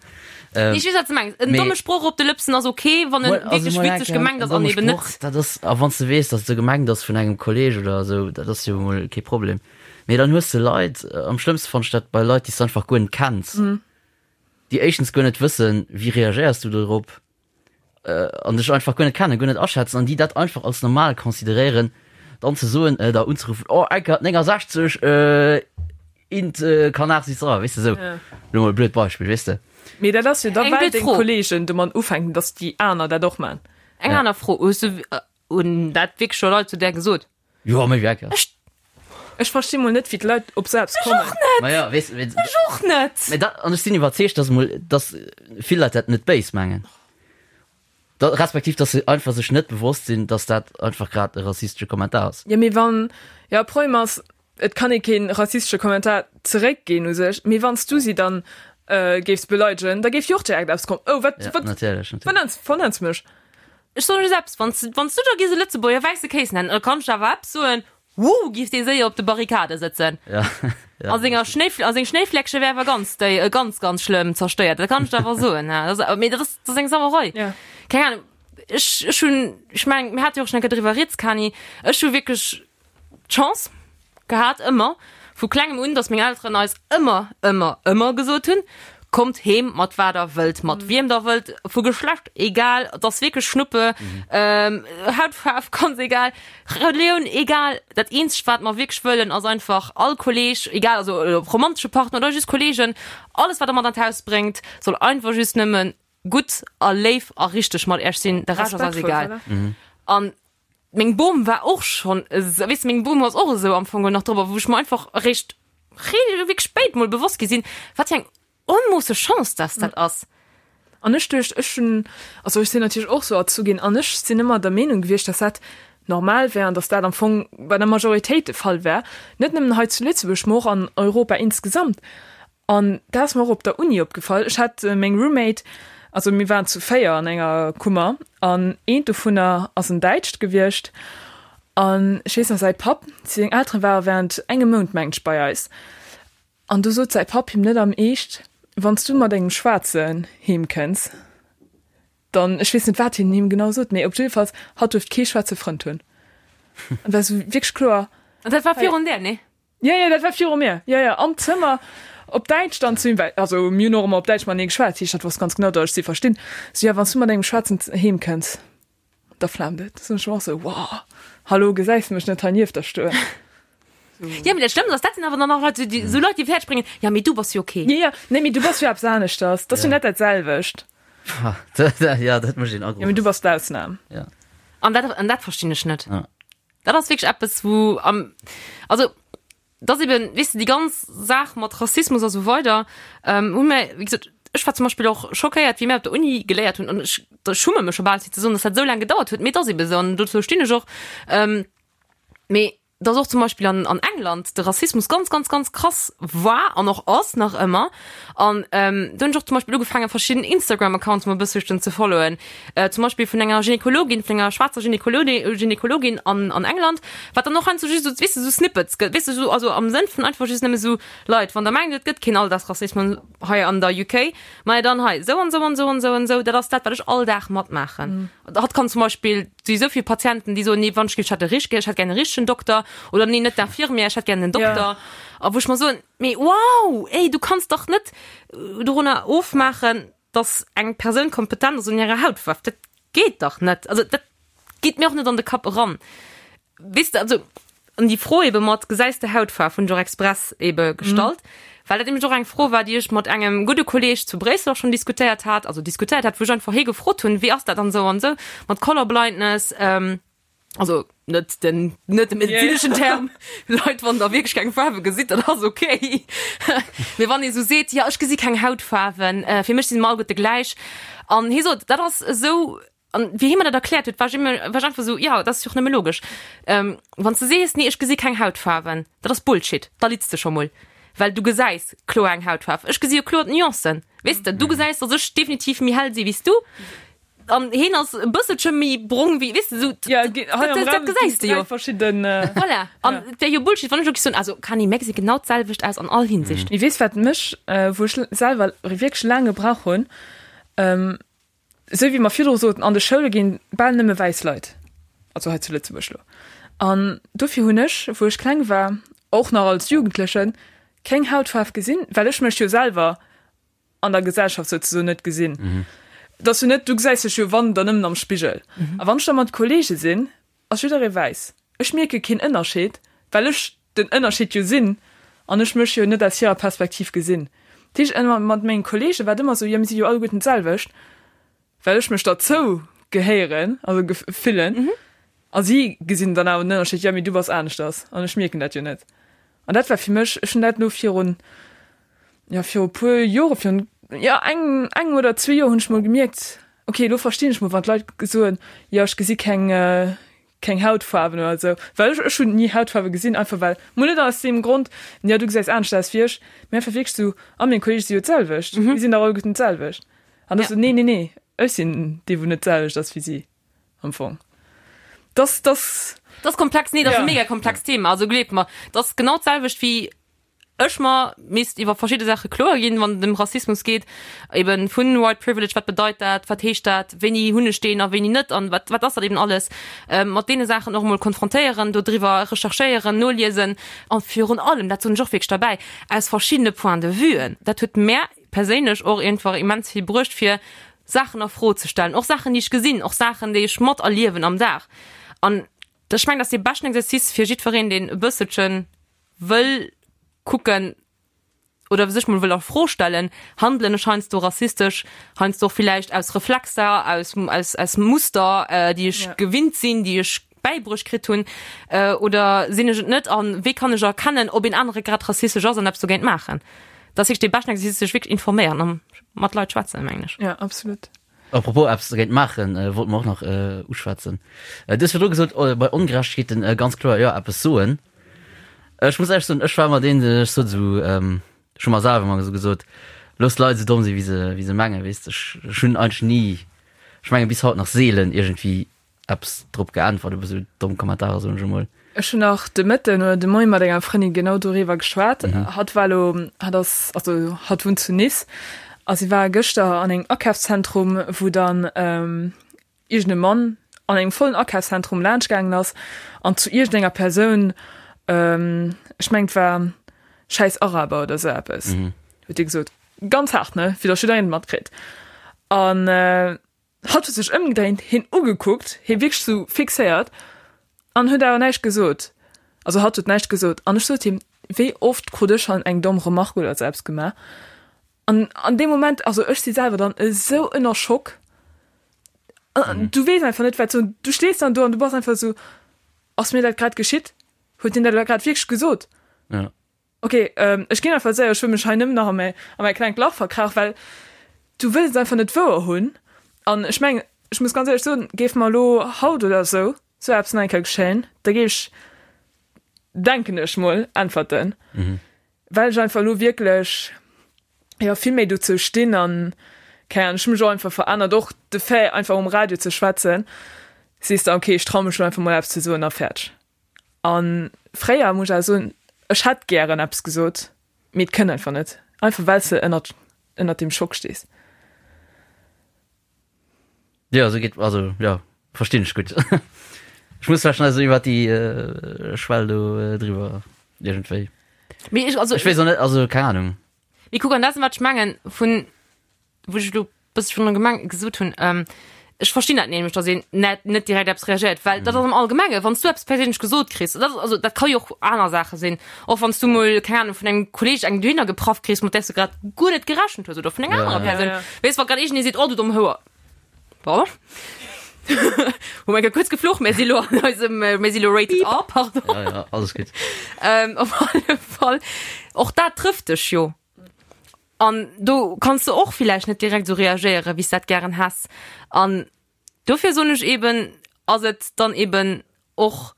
Nee, ech weess, wat s de mengs. En domme Sproch op de Lëpsen ass ok, wann en wierklech witzeg gemengt ass an eben net. Dat ass, a wann s de weess, datt et esou gemengt ass vun engem Kolleeg oder esou, dat ass jo emol kee Problem. Mee dann hues de Leit, am schlëmmste fannen ech dat bei Leit, déi s de einfach guer net kenns, déi éischtens guer net wëssen, wéi reagéiers du dorop, an dech einfach guer net kennen, guer net aschätzen an déi dat einfach als normal consideréieren, dann ze soen, äh, da unzeruffen, oh Eckert 69, äh, int äh, Canard sitzt dran, weess de sou. Ja. Lo mol e blöd Beispill, weess de. Mee dat ass jo da Eng well blöd deng Fro. Kollegen domat ufänken, dass déi aner dat och man. Eng aner Fro, Hues du, hunn dat wierklech scho Leit zu där gesot? Jo, méi wéi Eckert. Ech. Ech versti mol net, wéi d'Leit op sou eppes kommen. Ech och net! Ma ja, weess, weess. Ech och net! Mee dat, an ech sinn iwwerzeegt, dass mol, dass vill Leit dat net béis mengen. Da, respektiv, dass se einfach sech net bewosst sinn, dass dat einfach grad e rassistesche Kommentar ass. Jo, mee wann, jo, Problem ass, et kann ee kee rassistesche Kommentar zeréckginn u sech, mee wann s du si dann géifs beleidegen, da géif jo och direkt eppes kommen, Oh, wat, Ja, wat, natierlech, natierlech. wat nenns, vernenns mech? Ech soen just eppes, wann s, wann s du da giss e Lëtzebuerger wäisse Kéis nennen, da kann ech der awer eppes soen, Woo, giff dee séier op de Barrikade sëtzen. Ja, ja. A senger Schnéi, a seng Schnéifläckche wär awer ganz déi, ganz, ganz schlëmm zerstéiert, dat kann ech der awer soen, ha. Dat ass, mee dat ass, dat ass eng Sauerei. Ja. Keng Ahnung, ech, ech hunn, ech mengen, mir hate jo och schon eng Kéier driwwer rieds, Kani, ech hu wierklech d'Chance gehat, ëmmer, vu klengem un, dass meng Elteren eis ëmmer, ëmmer, ëmmer gesot hunn, Kommt heem mat wat der wëllt, mat wiem der wëllt, vu Geschlecht egal, et ass wierklech Schnuppe, Hautfaarf ganz egal, Relioun egal. Dat eenzegt wat mer wierklech wëllen ass einfach all Kolleg, egal also ob romantesche Partner oder just Kollegen, alles wat der mat an d'Haus bréngt, soll einfach just nëmme gutt a léif a richteg mat iech sinn, de Rescht ass eis Respektvoll, egal. voilà. An meng Bom war och schonn esou, weess de, meng Bom ass och esou am Fong geholl nach drop, a wou ech mer einfach eréischt wierklech spéit mol bewosst gi sinn, wat fir eng onmoosse Chance dass dat ass. An ech duecht, ech hunn, also ech sinn natierlech och sou erzu ginn an ech sinn ëmmer der Meenung gewiescht, dass dat normal wär an dass dat am Fong bei der Majoritéit de Fall wär, net nëmmen hei zu Lëtzebuerg, mä och an Europa insgesamt. An dat ass mer och op der Uni opgefall. Ech hat meng Roommate, also mir waren zu 4 an enger Kummer an eent dovunner ass en Däitscht gewiescht an ech weess nach säi Papp, seng Elteren ware während engem Mount mengt ech bei eis an du sot säi Papp him net am Eescht, wann s du mat engem Schwaarzen heem kënns, dann, ech weess net wat hien him genau sot, mee op jiddefalls hatt duerft kee schwaarze Frënd hunn. An war sou wierklech kloer. An dat war virun där, nee? Jo, jo, dat war viru mir. Jo, jo, am Zëmmer op Däitsch dann zu him, well, also mir hunn och ëmmer op Däitsch matenee geschwat, dat heescht, hatt wosst ganz genau, datt ech si verstinn. Sou, jo, wann s du mat engem Schwaarzen heem kënns, da flaamt et. Sou, ech war och sou, wow, hallo, gesäis de mech net hei nieft der stoen? Jo, mee dat Schlëmmst ass, dat sinn awer dann nach Leit, déi, sou Leit, déi fäerdeg bréngen, jo, mee du bass jo ok. Jo, jo, nee, mee du bass jo eppes aneschters, dat ass jo net dat selwecht. Ja, dat mécht een Jo, mee du bass d'Ausnam. Ja. An dat, an dat verstinn ech net. Ja. Dat ass wierklech eppes, wou am, also dat ass eben, weess de, déi ganz Saach mat Rassismus a sou weider, ähm, hu mir, wéi gesot, ech war zum Beispill och schockéiert, wéi mir op der Uni geléiert hunn, an ech, da schumme mech scho bal fir ze soen, dass dat esou laang gedauert huet, mee et ass ebe sou an dozou stinn ech och. Ähm, mee dass och zum Beispill an, an England de Rassismus ganz, ganz, ganz krass war an och ass nach ëmmer. An ähm, do hunn ech och zum Beispill ugefaangen, verschidden Instagram-Accounts mol e bësselchen ze followen. Äh, zum Beispill vun enger Gynekologin, vun enger schwaarzer Gynekologin, Gynekologin an, an England, wat dann och heiansdo just esou, weess de, esou Snippets gëtt, weess de, esou, also am Sënn vun einfach just nëmme esou, Leit, wann der mengt, et gëtt keen Alldagsrassismus hei an der UK, majo dann hei, esou an esou an esou an esou an esou, dat ass dat, wat ech all Dag matmaachen. Hatt kann zum Beispill, si esou vill Patienten, déi soen, nee, wann ech géif, ech hätt e richtege, ech hätt gär e richtegen Dokter, oder nee, net d'Infirmière, ech hätt gär en Dokter. A wou ech mer soen, Mee wow, ey, du kanns dach net dorunner ofmaachen, dass eng Persoun kompetent ass un hirer Hautfaarf. Dat geet dach net. Also dat geet mir och net an de Kapp eran. Weess de, also an déi Fro ebe mat gesäis de Hautfaarf hunn ech och express ebe gestallt, well dat nämlech och eng Fro war, déi ech mat engem gudde Kolleeg zu Bréissel och schonn diskutéiert hat, also diskutéiert hat, wou ech einfach hie gefrot hunn, wéi ass dat dann esou an esou mat Colorblindness, Also net den net de medezineschen Term. Leit, wann der wierklech keng Faarwe gesitt, dat ass okay. Mee wann ee sou seet, jo ech gesi keng Hautfaarwen, äh, fir mech si se mer alleguerte gläich. An hie sot, dat ass esou, an wéi hie mer dat erkläert huet, war ech ëmmer, war ech einfach esou, jo, dat ass jo och nëmme logesch. Ähm, wann s de sees, nee ech gesi keng Hautfaarwen, dat ass Bullshit, da litts de scho mol. Well du gesäis kloer eng Hautfaarf. Ech gesi jo kloer d'Nuancen, weess de. Du gesäis, datt ech definitiv méi hell si wéi s du. An heen ass e bësselche méi brong wéi, weess de, sou. Ja, gi, hei am Dat, dat Raum gesäis de ginn jo. dräi verschidden. Voilà. An et wär jo Bullshit, wann ech elo géif soen, also Kani, mär gesi genau d'selwecht aus an all Hinsicht. Mee weess wat mech, wou ech selwer wierklech laang gebrauch hunn, esou wéi mer virdru soten, an de Schoule ginn bal nëmme wäiss Leit, also hei zu Lëtzebuerg elo. An dofir hunn ech, wou ech kleng war, och nach als Jugendlechen, keng Hautfaarf gesinn, well ech mech jo selwer an der Gesellschaft souzesoen net gesinn. Et ass jo net, du gesäis dech jo wann, dann nëmmen am Spigel. A wann ech da mat Kollege sinn, ass jidderee wäiss. Ech mierke keen Ënnerscheed, well ech den Ënnerscheed jo sinn an ech mech jo net aus hirer Perspektiv gesinn. Dat heescht, ëmmer mat menge Kollege war et ëmmer esou, jo mir si jo alleguerten d'selwecht, well ech mech derzou gehéieren, also fillen. A si gesinn dann awer den Ënnerscheed, jo mee du bass aneschters an ech mierken dat jo net. An dat war fir mech, ech hunn dat elo virun, jo viru puer Jore, virun, jo engem, engem oder zwee Joer hunn ech mol gemierkt, okay elo verstinn ech mol wann d'Leit soen, jo ech gesi keng, keng Hautfaarwen oder esou. Well ech, ech hunn ni Hautfaarwe gesinn, einfach well, mol net aus deem Grond, jo du gesäis anescht aus wéi ech, mee einfach wierklech esou, a meng Kolleege si jo d'selwecht, mir sinn dach alleguerten d'selwecht. An da sou, nee, nee, nee, ech sinn dee wou net d'selwecht ass wéi si. Am Fong. Das, das. Das komplex, nee, das ja. mega komplex Thema. Also gleeft mer, das genau d'selwecht wéi ech mer misst iwwer verschidde Sache kloer ginn, wann et ëm Rassismus geet, eben vun White Privilege, wat bedeit dat, wat heescht dat, wéini hunn ech deen a wéini net an wat, wat ass dat eben alles, ähm, mat deene Saachen och emol konfrontéieren, do driwwer recherchéieren, noliesen an virun allem, dat soen ech och wierklech derbäi, aus verschiddene Point de vuen. Dat huet mär perséinlech och einfach immens vill bruecht, fir Saachen a Fro ze stellen, och Saachen, déi ech gesinn, och Saachen, déi ech materliewen am Dag. An ech mengen, dat ass dee beschten Exercice fir jiddwereen, deen e bësselche wëll kucken oder sech mol wëll a Fro stellen, handelen ech heiansdo rassistesch, heiansdo och villäicht aus Reflexer, aus, aus, aus Muster, déi ech gewinnt sinn, déi ech bäibruecht kritt hunn, oder sinn ech et net an wéi kann ech erkennen, ob een anere grad rassistesch ass an eppes dogéint maachen? Dat ass wierklech dee beschten Exercice, sech wierklech informéieren a mat Leit schwätzen, mengen ech. Ja, absolut. Apropos eppes dogéint maachen, wollte mer och nach uschwätzen. Du hues virdru gesot, bei Ongerechtegkeeten ganz kloer, jo, eppes soen. Ech muss éierlech soen, ech war ëmmer deen, ech sot esou, ech hu mer selwer ëmmer esou gesot, looss d'Leit esou domm sinn, wéi se, wéi se mengen, weess de. Ech, ech hunn eigentlech ni, ech menge bis haut nach seelen iergendwéi eppes drop geäntwert op esou domm Kommentarer, soen ech emol. Ech hunn nach de Mëtten oder de Moie mat enger Frëndin genau doriwwer geschwat. Hatt war elo, hatt ass, also hatt wunnt zu Nice a si war gëschter an engem Akafszentrum, wou dann iergend e Mann an engem vollen Akafszentrum laanscht gaangen ass an zu iergendenger Persoun, ech mengen et war schäiss Araber oder esou eppes, huet hie gesot. Ganz haart, ne, fir datt jiddereen et matkritt. An Hatt huet sech ëmgedréint, hien ugekuckt, hie wierklech sou fixéiert an huet awer näischt gesot. Also hatt huet näischt gesot an ech sot him, wéi oft krut ech schonn eng domm Remarque oder sou eppes gemaach an an deem Moment, also ech si selwer dann esou ënner Schock, du weess einfach net wat soen, du stees dann do an du bass einfach esou, ass mir dat grad geschitt? Huet hien dat elo grad wierklech gesot? Ja. Ok, ech ginn einfach séier, ech wëll mech hei nëmmen nach a mäi, a mäi klengt Lach verkrauchen, well du wëlls et einfach net wouer hunn. An ech mengen, ech muss ganz éierlech soen, géif mer elo haut oder esou sou eppes nach eng Kéier geschéien, da géif ech, denken ech mol, äntwerten, well ech einfach elo wierklech, jo, vill méi dozou stinn an, keng Ahnung, ech hu mech och einfach verännert, och de Fait einfach um Radio ze schwätzen, sees de, ok, ech trau mech elo einfach mol eppes ze soen a fäerdeg. An fréier, muss ech awer soen, ech hätt gären eppes gesot, mee et kënnt einfach net, einfach well s de ënnert, ënnert deem Schock stees. Jo, esou geet, also jo, verstinn ech gutt. Ech muss vläicht nach esou iwwer déi Schwell do driwwer iergendwéi. Mee ech, also. Ech weess och net, also keng Ahnung. Mee kuck, an dat ass wat ech mengen, vun, wou ech elo bësse virun gemeng gesot hunn, ähm, ech verstinn dat nämlech, datt een net, net direkt eppes reagéiert, well dat ass am Allgemenge, wann s du eppes perséinlech gesot kriss, dat ass, also dat ka jo och aner Saache sinn, och wann s du mol, keng Ahnung, vun engem Kolleeg eng dohinner gepraff kriss, mat där s du grad guer net gerechent hues oder vun enger Ja, anerer ja. Persoun, Ja, ja. weess, wa grad iergendee seet, oh du domm Houer, pardon, hu mer kuerz geflucht, mir si lo an eisem, mir si lo rated R, pardon. Ja, ja, alles gutt. Ähm, op alle Fall, och dat trëfft dech jo. An do kanns de och villäicht net direkt esou reagéieren, wéi s dat gären häss. An dofir soen ech eben, ass et dann eben och.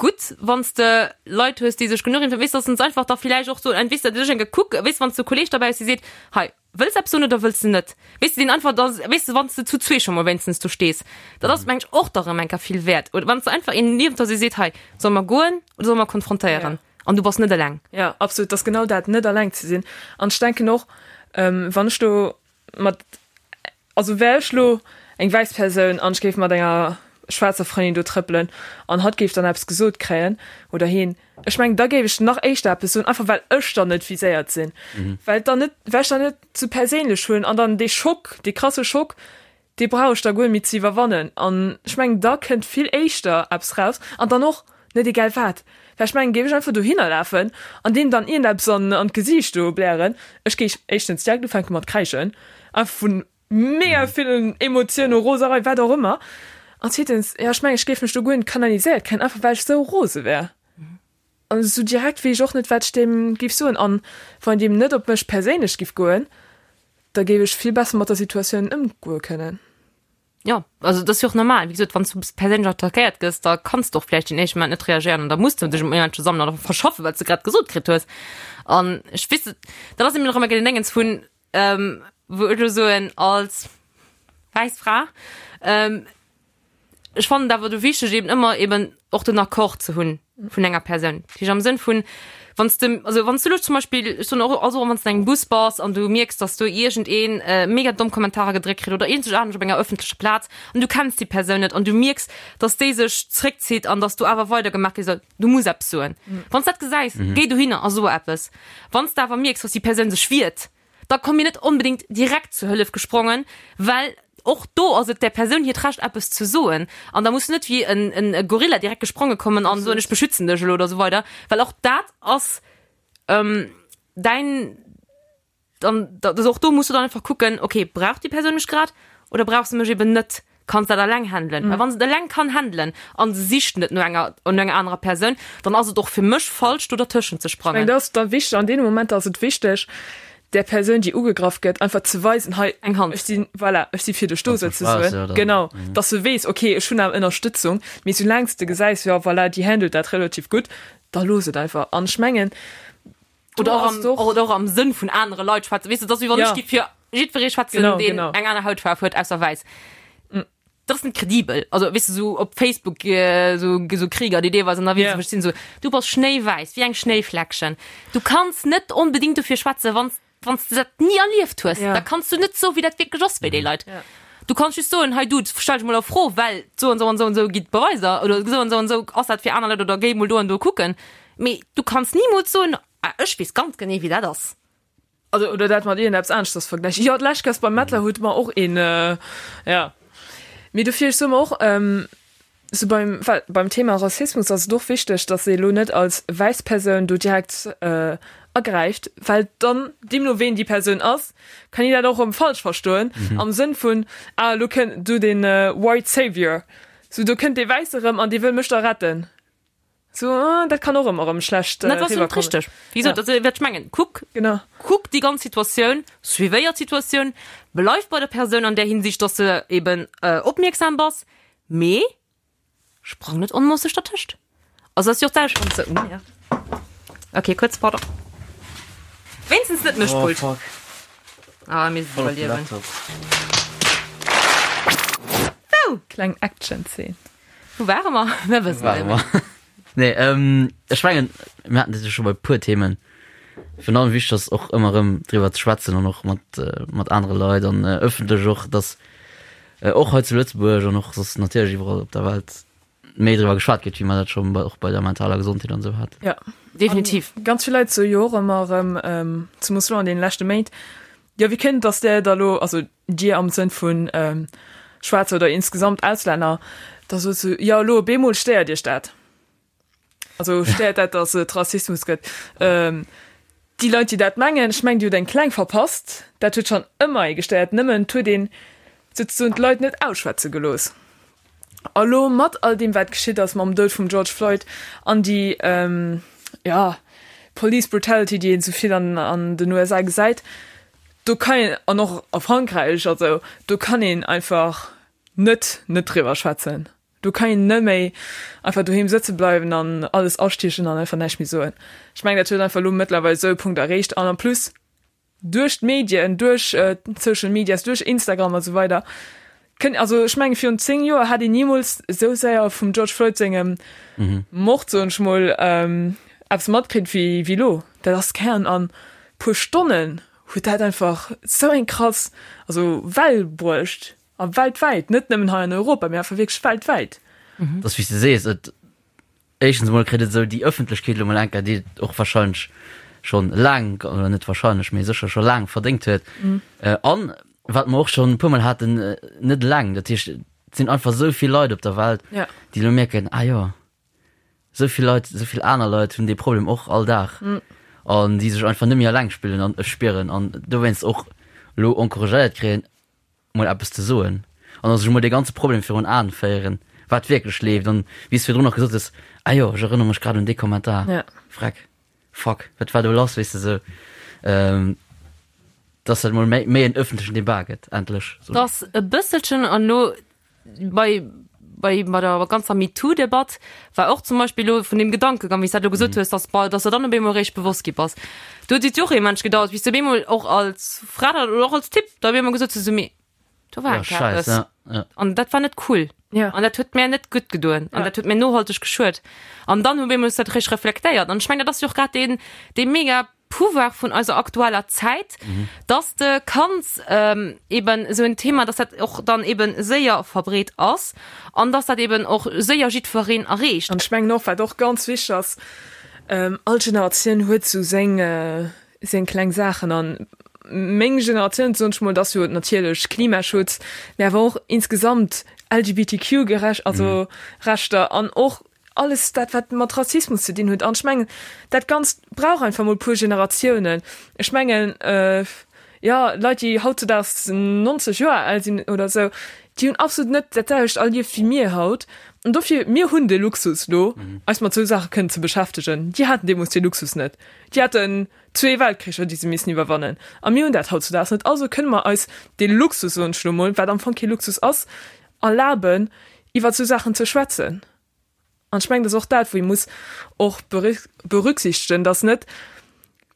gutt, wann s de Leit hues, déi sech genuch informéieren, weess, dass se einfach da villäicht och soen, weess de, duerch eng gekuckt, weess, wann s de e Kolleeg derbäi hues, dee seet, hei, wëlls eppes soen oder wëlls de net? Weess de, deen einfach da, weess de, wann s de zu zwee scho mol wéinstens do stees, dat ass, meng ech, och da rëm eng Kéier vill wäert. Oder wann s de einfach een niewent der hues, dee seet, hei, solle mer goen oder solle mer konfrontéieren? An du bass net eleng. Jo, absolut, dat ass genau dat, net eleng ze sinn. An ech denken och, wann ech do mat, also wär ech lo eng wäiss Persoun an ech géif mat enger schwaarzer Frëndin do trëppelen an hatt géif dann eppes gesot kréien oder hien, ech mengen da géif ech nach éischter eppes soen, einfach well ech dann net viséiert sinn, well et dann net, well ech dann net sou perséinlech hunn an dann dee Schock, dee krasse Schock, dee brauch ech da guer net méi ze iwwerwannen an ech mengen da kënnt vill éischter eppes raus an dann och net egal wat, well ech mengen géif ech einfach dohinner lafen an deem dann iergendeppes an an d'Gesiicht do blären, ech géif éischtens direkt ufänke mat kräischen, einfach vu mega villen Emotiounen, Roserei, wat och ëmmer an zweetens, jo ech mengen ech géif mech do guer net kanaliséiert kréien, einfach well ech sou rose wär. An esou direkt weess ech och net, wat ech deem géif soen. An wann een deem net op mech perséinlech géif goen, da géif ech vill besser mat der Situatioun ëmgoe kënnen. Jo, also dat ass jo och normal. Wéi gesot, wann s du perséinlech attackéiert gëss, da kanns de och vläicht den éischte Moment net reagéieren an da muss du dech um Iergendwou sammelen oder verschaffen, wat s de grad gesot kritt hues. An ech weess, dat ass eben och ëmmer den Déngens vun, wou ech elo soen, als wäiss Fra, Ech fannen et awer do wichteg eben ëmmer eben och den Accord ze hunn vun enger Persoun. Dat heescht am Sënn vun, wann s de, also wann s du elo zum Beispill, ech soen och, also wann s de an engem Bus bass an du mierks, datt do iergendeen mega domm Kommentarer gedréckt kritt oder iergendwou anescht op enger ëffentlecher Plaz an du kenns déi Persoun net an du mierks, datt déi sech zréckzitt an datt do awer weidergemaach gi soll, du muss eppes soen. Wann s dat gesäis, géi dohinner a so eppes. Wann s de awer mierks, datt déi Persoun sech wiert, da komm mir net onbedéngt direkt zur Hëllef gesprongen, well och do ass et där Persoun hiert Recht eppes ze soen an da muss du net wéi en e Gorilla direkt gespronge kommen an soen ech beschützen dech elo oder esou weider, well och dat ass däin, dann also och do muss du dann einfach kucken, okay brauch déi Persoun mech grad oder brauch se mech eben net. Kann se dat eleng handelen? Well wann se et eleng kann handelen an se sicht net no enger no enger anerer Persoun, dann ass et och fir mech falsch do dertëschent ze Ech mengen, sprangen. dat ass da wichteg, an deene Momenter ass et wichteg, där Persoun, déi ugegraff gëtt, einfach ze weisen, hei, Eng Hand. ech sinn, voilà, ech si fir dech do Wann s du souzesoen. schwaach ass, ja, dann, Genau, dass se weess, okay, ech hunn awer Ënnerstëtzung. Mee soulaang s de gesäis, jo, voilà, déi handelt dat relativ gutt, da looss et einfach. An ech mengen, do Oder och ass am, et och. oder och am Sënn vun anere Leit schwätzen. Weess de, dass wéi wann Ja. ech géif fir jiddweree schwätzen, Genau, deen genau. eng aner Hautfaarf huet ausser wäiss. Dat ass net kredibel. Also, weess de, sou op Facebook, sou, sou Krieger, déi deelweis ënnerwee Ja. sinn, sinn sou, du bass schnéiwäiss, wéi eng Schnéifläckchen. Du kanns net onbedéngt dofir schwätzen, wann s, wann s de dat ni erlieft hues. Ja. Da kanns du net soen, wéi dat wierklech ass bei déi Leit. Ja. Du kanns just soen, hei du, stell dech mol a Fro, well sou an sou an sou an sou gi d'Beweiser oder sou an sou an sou ass dat fir aner Leit oder géi mol do an do kucken. Mee du kanns nimools soen, ah, ech weess ganz genee, wéi dat ass. Also, oder dat mat iergendeppes aneschters vergläichen. Jo, d'lescht Kéiers beim Mettler huet mer och een, ja. Mee dofir, ech soe mer och, sou beim, well beim Thema Rassismus ass et och wichteg, dass ee lo net als wäiss Persoun do direkt agräift, well dann, deemno ween déi Persoun ass, kann een dat och erëm falsch verstoen, am Sënn vun, ah, elo kënnt do dee white savior, sou do kënnt dee Wäisse erëm an dee wëll mech da retten. So, ah, dat kann och ëmmer erëm schlecht Dat ass riwwerkommen. richteg. Wéi gesot, also wat ech mengen, kuck, Genau. kuck déi ganz Situatioun, suivéier d'Situatioun, bleif bei der Persoun an där Hinsicht, dass de eben opmierksam bass, mee sprang net onmoosseg dertëscht. Also ass jo och d'selwecht, wann s de, oh merde, okay, kuerz, pardon, wéinstens net mech Oh Pult. fuck. Ah, mir se Voll op den iwwerliewen. Laptop. Wou? Kleng Action-Zeen. Wou ware mer? Mir wëssen Ware et net mer. Nee, ähm, ech mengen, mir haten dat jo scho bei puer Themen. Virun allem wichteg ass och ëmmer erëm driwwer ze schwätzen an och mat, äh, mat anere Leit an äh, ëffentlech och, dass äh, och hei zu Lëtzebuerg an och soss natierlech iwwerall op der Welt méi driwwer geschwat gëtt, wéi mer dat scho bei, och bei der mentaler Gesondheet an esou haten. Ja. Definitiv. An ganz vill Leit soe jo och ëmmer erëm, ähm, zemoos elo an deene leschte Méint, jo, wéi kënnt et, dass där da elo, also Dir am Sënn vun Schwaarzer oder insgesamt Auslänner, da sot se, jo elo op eemol stéiert Iech dat. Also stéiert dat, datt et Rassismus gëtt. Déi Leit, déi dat mengen, ech mengen, déi hutt eng kleng verpasst. Dat huet schonn ëmmer ee gestéiert, nëmmen et huet een souzesoen d'Leit net ausschwätze gelooss. A lo mat all deem wat geschitt ass mam Doud vum George Floyd an déi, jo, Police Brutality, déi een esou vill an den USA gesäit, do kann een, an och a Frankräich, also do kann een einfach net net driwwer schwätzen. Do kann een net méi einfach doheem sëtze bleiwen an alles astiechen an einfach näischt méi soen. Ech mengen, dat huet einfach elo mëttlerweil esou e Punkt erreecht an en plus duerch d'Medien, duerch d'Social Medias, duerch Instagram a sou weider kënn, also ech menge virun 10 Joer hätt een nimools esou séier vum George Floyd sengem Mord, soen ech mol, eppes matkritt wéi wéi elo. Dat ass kern an puer Stonnen huet dat einfach esou eng krass, also Well bruecht a weltwäit, net nëmmen hei an Europa, mee einfach wierklech weltwäit. Et ass wéi s de sees, et éischtens emol kritt et esou déi Ëffentlechkeet elo mol enker, déi et och wahrscheinlech schonn laang, oder net wahrscheinlech, mee sécher scho laang verdéngt huet. An wat mer och schonn e puermol haten, net eleng, dat heescht, et sinn einfach esou vill Leit op der Welt, déi elo mierken, ah jo, esou vill Leit, esou vill aner Leit hunn dee Problem och all Dag an déi sech einfach net méi eleng spillen an spieren an dowéinst och elo encouragéiert kréien, mol eppes ze soen an a sech emol dee ganze Problem virun Aen féieren, wat wierklech leeft an wéi s de virdrun och gesot hues, ah jo, ech erënnere mech grad un dee Kommentar, Ja. freck, fuck, wat war do lass, weess de sou, dass dat mol méi méi en ëffentlechen Debat gëtt, endlech. Dass e bësselchen an elo bei bei bei der ganzer MeToo-Debatt war och zum Beispill elo vun deem Gedankegang, wéi s dat elo gesot hues, dass bei dass der dann op eemol eréischt bewosst gi bass. Do huet et jo och ee Mensch gedauert, bis du op eemol och als Fra dann oder och als Typ da op eemol gesot hues, esou, mee do war Ja, enk scheiss, eppes ja, ja. an dat war net cool Ja. an dat huet mär net gutt gedoen an Ja. dat huet mär nohalteg geschuet. An dann op eemol hues du dat eréischt reflektéiert an ech mengen, dat ass jo och grad deen dee mega Pouvoir vun eiser aktueller Zäit, dass de kanns eben esou en Thema, dass dat och dann eben séier verbreet ass an dass dat eben och séier jiddwereen erreecht. An ech mengen och, wat och ganz wichteg ass, all Generatioun huet esou seng, seng kleng Saachen. An meng Generatioun, soen ech mol, dat ass jo natierlech Klimaschutz, mä awer och insgesamt LGBTQ-gerecht, also Rechter an och Alles dat, wat mat Rassismus ze dinn huet. An ech mengen, dat Ganzt brauch einfach mol e puer Generatiounen. Ech mengen, jo, Leit, déi hautzudaags 90 Joer al sinn oder esou, déi hunn absolut net dat selwecht erlieft wéi mir haut. An dofir, mir hunn de Luxus elo, eis mat esou Saache kënnen ze beschäftegen. Déi haten deemools dee Luxus net. Déi haten zwee Weltkricher, déi se missen iwwerwannen. A mir hunn dat hautzudaags net. Also kënne mer eis dee Luxus, soen ech elo mol, wat am Fong kee Luxus ass, erlaben, iwwer esou Saachen ze schwätzen. An ech mengen, dat ass och dat, wou ee muss och berücksichtegen, dass net,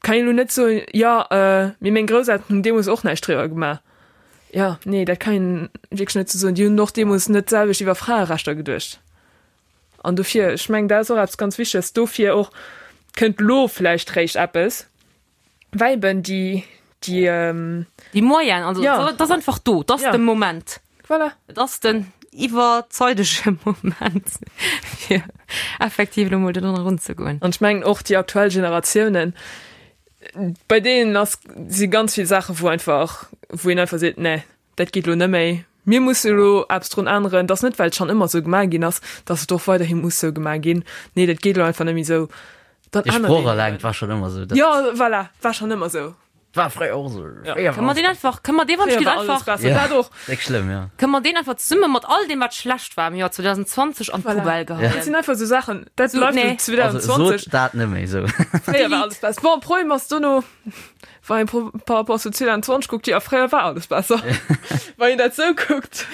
kann een elo net soen, jo, mee meng Grousselteren hunn deemools och näischt driwwer gemaach. Jo, nee, dat kann een wierklech net esou soen. Déi hunn och deemools net d'selwecht iwwer Fraerechter geduecht. An dofir, ech mengen, dat ass och eppes ganz Wichteges. Dofir och kënnt elo vläicht réischt eppes. Well eben déi, déi. Déi Moyenne, also Ja. dat ass einfach do, dat ass Ja. de Moment. Voilà. Et ass den iwwerzeidege Moment, fir effektiv elo mol do drun erunzegoen. An ech mengen och déi aktuell Generatiounen, bei deenen ass, si ganz vill Saachen, wou einfach, wou een einfach seet, nee, Dat geet elo net méi. Mir musse elo eppes drun änneren. Et ass net, well et schonn ëmmer esou gemaach ginn ass, datt et och weiderhi muss esou gemaach ginn. Nee, dat geet elo einfach net méi esou. Dann Dee ännert Sproch een eleng, eben. 't war schonn ëmmer esou. Dat Jo, voilà, war schonn ëmmer esou. war fréier och esou. Ja. Fréier Kënne war mer deen einfach, kënne mer dee wann Fréier ech war alles einfach, besser. Ja. Dat och. Déck schlëmm, jo. kënne mer deen einfach zesumme mat all deem wat schlecht war am Joer 2020 an Voilà. d'Poubelle Dat geheien. sinn einfach esou Saachen, dat So, bleift nee. elo Also 2020. sot dat net méi esou. Fréier war alles besser. Bon, Problem ass dono, Wann een par rapport zu 2020 kuckt, jo, fréier war alles besser. Wann een dat sou kuckt.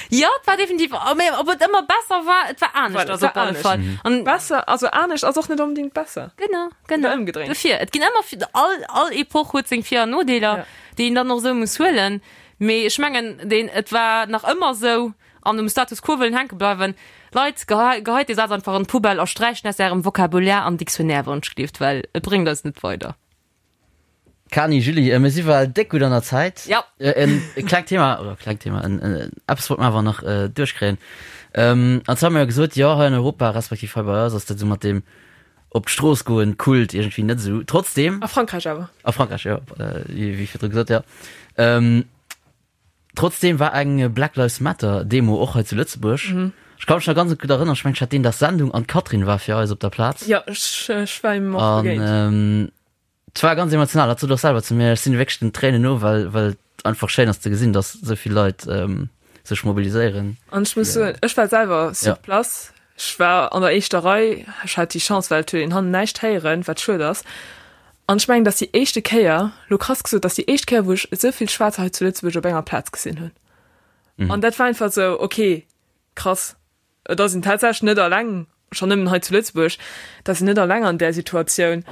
Jo, et war definitiv, mä ob et ëmmer besser war, et war anescht Voilà, also op alle Fall. An besser, also anescht ass och net onbedingt besser. Genau, genau. Oder ëmgedréint. Dofir, et ginn ëmmer, all, all Epoch huet seng Vir an Nodeeler, Ja. déi een dann och esou muss huelen. Mee ech mengen, deen, et war nach ëmmer esou, an um Status quo wëllen hänke bleiwen. Leit, geheit dee Saz einfach an d'Poubelle a sträicht en aus ärem Vocabulaire an Dictionnaire, wann ech gleeft, well et bréngt eis net weider. Kani, Julie, mir si well déck gutt an der Zäit. Ja. En klengt Thema, oder klengt Thema, en eppes wollt mer awer nach duerchkréien. An zwar hu mer jo gesot, jo, hei an Europa, respektiv hei bei eis ass dat esou mat deem op d'Strooss goen Kult iergendwéi net esou. Trotzdem. A Frankräich awer. A Frankräich, jo, wéi virdru gesot, jo. Trotzdem war eng Black Lives Matter Demo och hei zu Lëtzebuerg. Ech ka mech nach ganz gutt erënneren, ech mengen ech hat deen Dag Sendung an d'Catherine war fir eis op der Plaz. Jo, ech ech war him och An begéint. et war ganz emotional, hat sot och selwer zu mir, ech sinn wierklech den Tréinen no, well well et einfach schéin ass ze gesinn, datt esou vill Leit sech mobiliséieren. An ech muss soen, ech war selwer sur Ja. place, ech war an der éischter Rei, ech hat déi Chance, well et huet een hannen näischt héieren, wat schued ass. An ech mengen, dat ass déi éischte Kéier, lo krass gesot, dat ass déi éischt Kéier, wou ech esou vill Schwaarzer hei zu Lëtzebuerg op enger Plaz gesinn hunn. An dat war einfach esou, okay, Krass, et ass een tatsächlech net alleng, schonn nëmmen hei zu Lëtzebuerg, et ass een net alleng an där Situatioun.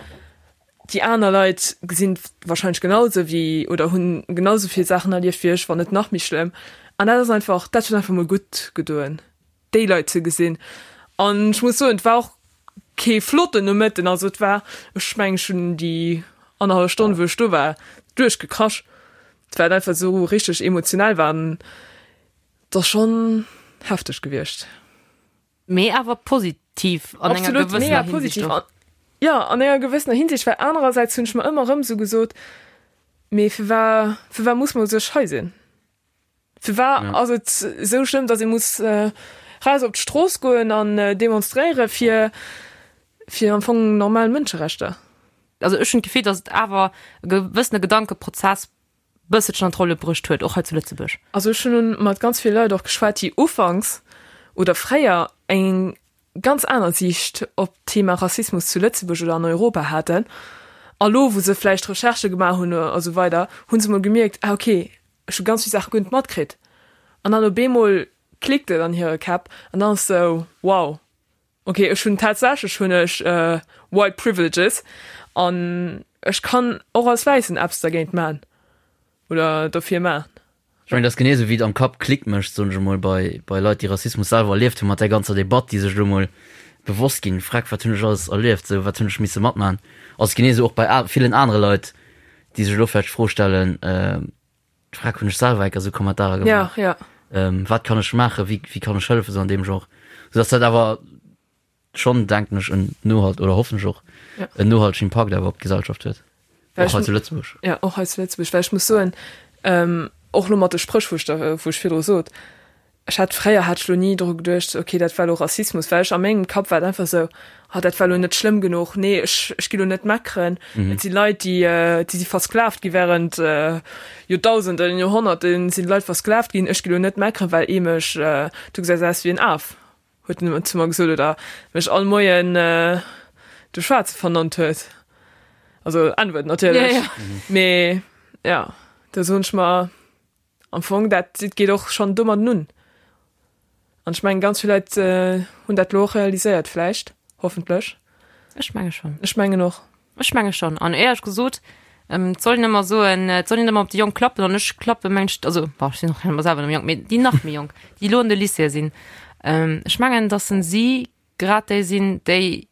Déi aner Leit gesinn et warscheinlech genau esou wéi oder hunn genau esou vill Saachen erlieft wéi ech, wann net nach méi schlëmm. An dat ass einfach, dat huet einfach mol gutt gedoen, déi Leit ze gesinn. An ech muss soen, et war och kee flotten Nomëtten, also et war, ech mengen, ech hunn déi annerhallef Stonn, wou ech do war, duerchgekrasch, well et einfach esou richteg emotionell war. An Et ass schonn hefteg gewiescht. Mee awer positiv an enger Absolut, mega gewëssener Hinsicht positiv. och. Jo, an enger gewëssener Hinsicht, well anerersäits hunn ech mer ëmmer erëm esou gesot, mee firwar, firwar muss mer u sech hei sinn? Firwar Ja. ass et esou schlëmm, datt ee muss raus op d'Strooss goen an demonstréiere fir, fir am Fong normal Mënscherechter? Also ech hunn d'Gefill, datt et awer e gewëssene Gedankeprozess bësselchen an d'Rolle bruecht huet, och hei zu Lëtzebuerg. Also ech hunn mat ganz ville Leit och geschwat, déi ufanks oder fréier eng ganz aner Siicht op d'Thema Rassismus zu Lëtzebuerg oder an Europa haten. A lo, wou se vläicht Recherchë gemaach hunn a sou weider, hu se mol gemierkt, ah okay, ech hu ganz vill Saache guer net matkritt. An dann op eemol klickt et an hire Käpp an dann ass sou, wow, Ok, ech hunn tatsächlech hunn ech white privileges an ech kann och als Wäissen eppes dergéint man oder dofir man. Ech mengen, dat ass genee esou wéi et am Kapp Klick mécht, soen ech emol, bei bei Leit, déi Rassismus selwer erlieft hunn, mat där ganzer Debatt, déi sech elo emol bewosst ginn, Freck, wat hunn ech alles erlieft, esou, wat hunn ech misse matman. Ass genee esou och bei villen anere Leit, déi sech elo vläicht d'Fro stellen, D'Frag hunn ech selwer enker esou Kommentarer gemaach. Ja, ja. Ähm, wat kann ech maachen, wéi, wéi kann ech hëllefen, esou an deem Genre. Sou dass dat awer schonn, denken ech, en nohalt, oder hoffen ech och, Ja. en nohaltegen Impakt awer op d'Gesellschaft huet. Well Och ech hei zu Lëtzebuerg. Ja, och hei zu Lëtzebuerg, well ech muss soen, ähm, och lo mat de Spréch, wou ech da, wou ech virdru sot, Ech hat fréier hat ech lo ni dru geduecht, ok dat war lo Rassismus, well ech a mengem Kapp war et einfach esou, ah dat war lo net schlëmm genuch, nee ech ech gi lo net meckeren, et si Leit déi déi si versklavt gi während Joerdausenden, Joerhonnerten sinn d'Leit versklavt ginn, ech gi lo net meckeren, well ee mech, du gesäis aus wéi en Af, huet en ëmmer zu mer gesot oder mech all Moien de Schwaarze vernannt huet, also N-Wuert natierlech, mee ja do soen ech mer, Am Fong, dat geet och schonn domadden un. An ech mengen, ganz vill Leit hunn dat elo och realiséiert vläicht, hoffentlech. Ech menge schonn. Ech mengen och. Ech menge schonn. An éierlech gesot, et soll een ëmmer soen, et soll een ëmmer op déi Jonk klappen. An ech klappe mengen ech, also bon, ech sinn och ëmmer selwer nach méi jonk, mee déi nach méi Jonk, déi elo an de Lycéeë sinn, ech mengen, datt si grad déi sinn, déi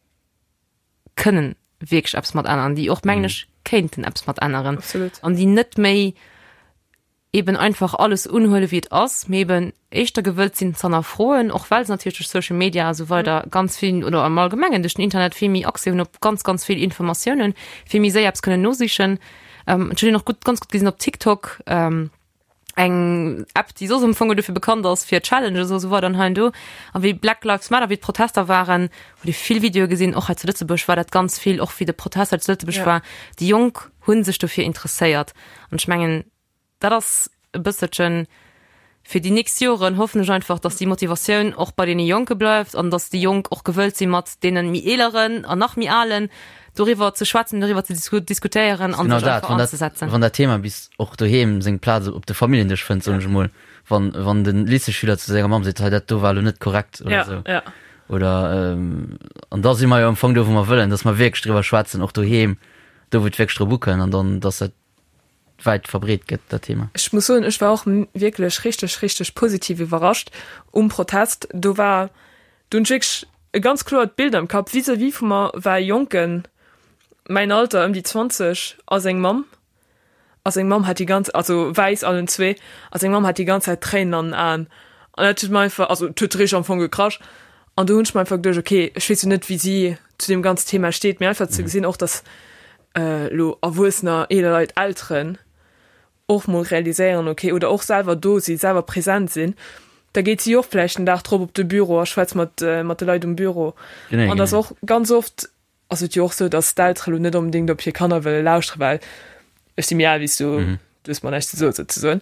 kënnen wierklech eppes mat änneren, déi och, mengen ech, kéinten eppes mat änneren. Absolut. An déi net méi eben einfach alles unhuele wéi et ass, mee eben éischter gewëllt sinn z'hannerfroen, och well se natierlech duerch Social Media a sou weider ganz vill oder am Allgemengen duerch den Internet vill méi Accès hunn op ganz, ganz vill Informatiounen, vill méi séier eppes kënnen nosichen. Ähm, ech hunn och gutt, ganz gutt gesinn op TikTok, ähm, eng App, déi soss am Fong dofir bekannt ass fir Challenges a sou weider an hei an do. A wéi Black Lives Matter, wéi d'Protester waren, huet ee vill Videoe gesinn, och hei zu Lëtzebuerg war dat ganz vill, och wéi de Protest hei zu Lëtzebuerg Ja. war. Déi Jonk hu sech dofir interesséiert. An ech mengen, dat ass e bësselchen fir déi nächst Joren, hoffen ech einfach, dass déi Motivatioun och bei deene Jonke bleift an dass déi Jonk och gewëllt si mat deene méi Eeleren an nach méi Alen doriwwer ze schwätzen, doriwwer ze diskutéieren an Genau sech dat, einfach wann dat, anzesetzen. wann dat Thema bis och doheem seng Plaz op de Familljendësch fënnt, soen ech emol, wann, wann de Lycéeschüler zu senger Mamm seet, hei dat do war elo net korrekt oder Ja, esou. ja. Oder, an da si mer jo am Fong do, wou mer wëllen, dass mer wierklech driwwer schwätzen, och doheem, do wou et wierklech drop ukënnt an dann, dass dat wäit verbreet gëtt, dat Thema. Ech muss soen, ech war och wierklech richteg, richteg positiv iwwerrascht um Protest. Do war, do hunn ech wierklech e ganz kloert Bild am Kapp. Vis-à-vis vu mer war e Jonken, mäin Alter, ëm déi 20, a seng Mamm. A seng Mamm hat déi ganz, also wäiss allen zwee, a seng Mamm hat déi ganz Zäit Tréinen an den Aen. An dat huet mer einfach, also et huet richteg am Fong gekrasch. An do hunn ech mer einfach geduecht, okay, ech weess jo net, wéi si zu deem ganzen Thema steet, mee einfach ze gesinn och, dass elo Erwuessener, eeler Leit, Elteren och mol realiséieren, okay, oder och selwer do sinn, selwer present sinn, da geet si och vläicht den Dag drop op de Büro a schwätzt mat mat de Leit um Büro. Genee, An dass genee. och ganz oft ass et jo och sou, dass d'Eltere lo net onbedéngt op hir Kanner wëlle lauschteren, well ech si méi al wéi s du, du hues mer näischt ze soen souzesoen,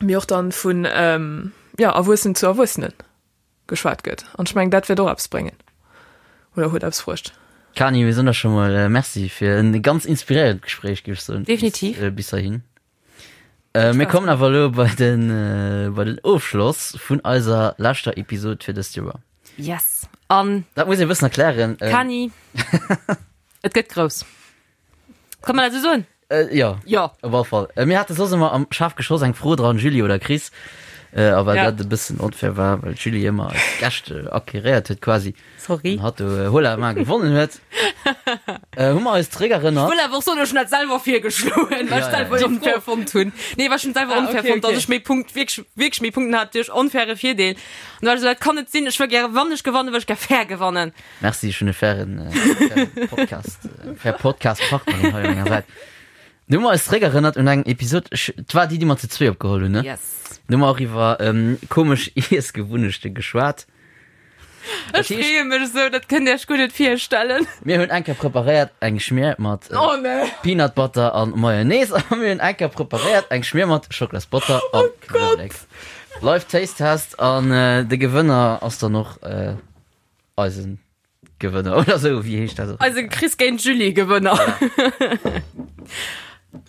mee och dann vun, jo, Erwuessenen zu Erwuessenen. Geschwat gëtt. An ech mengen, dat wäert och eppes bréngen oder huet eppes bruecht. Kani, mir soen der scho mol Merci fir en ganz inspiréierend Gespréich, géif ech soen. Definitiv. Bis heihin. Äh, mir kommen awer elo bei den, äh, bei den Ofschloss vun eiser leschter Episod fir dëst Joer. Yes. An Dat muss ee bëssen erklären. Ähm, Kani, et gëtt grouss. Kann man dat esou soen? Äh, ja. Ja. Op alle Fall. Äh, mir hate soss ëmmer am Schaf geschoss eng Fro dran, Julie oder Chris. Äh, a well Ja. dat e bëssen onfair war, well d'Julie ëmmer eis Gäscht äh, acquéréiert huet quasi. Sorry. An hatt do äh, Hola ma gewonnen huet. Äh, hu mer eis zeréckerënnert. Wëll awer och soen, ech hunn dat selwer virgeschloen, well Ja, ech ja, selwer ja. onfair fonnt hunn. Nee, well ech hunn selwer Ah, onfair okay, fonnt, dass okay. ech méi Punkt, wierklech, wierklech méi Punkten hat duerch onfaire Virdeel. An da war ech esou, dat kann net sinn, ech wëll gäre, wann ech gewannen, wëll ech gär fair gewannen. Merci, ech hunn e fairen, äh, fairen Podcast, äh, fair Podcast-Partnerin hei un menger Säit. Du hu mer eis zeréckerënnert un eng Episod, ech, 't war déi, déi mer zu zwee opgeholl hunn, ne? Yes. Du hu mer och iwwer ähm, komesch Iessgewunnechte geschwat. Ech freeë mech esou, dat kënnt Dir Iech guer net virstellen. Mir hunn eng Kéier preparéiert eng Schmier mat äh, Oh nee. Peanut Butter an Mayonnaise a mir hunn eng Kéier preparéiert eng Schmier mat Schocklasbotter an Knuewelek. Live Taste Test an äh, de Gewënner ass dann och äh, eisen Gewënner oder sou, wéi heescht dat? Eise Chris géint Julie Gewënner.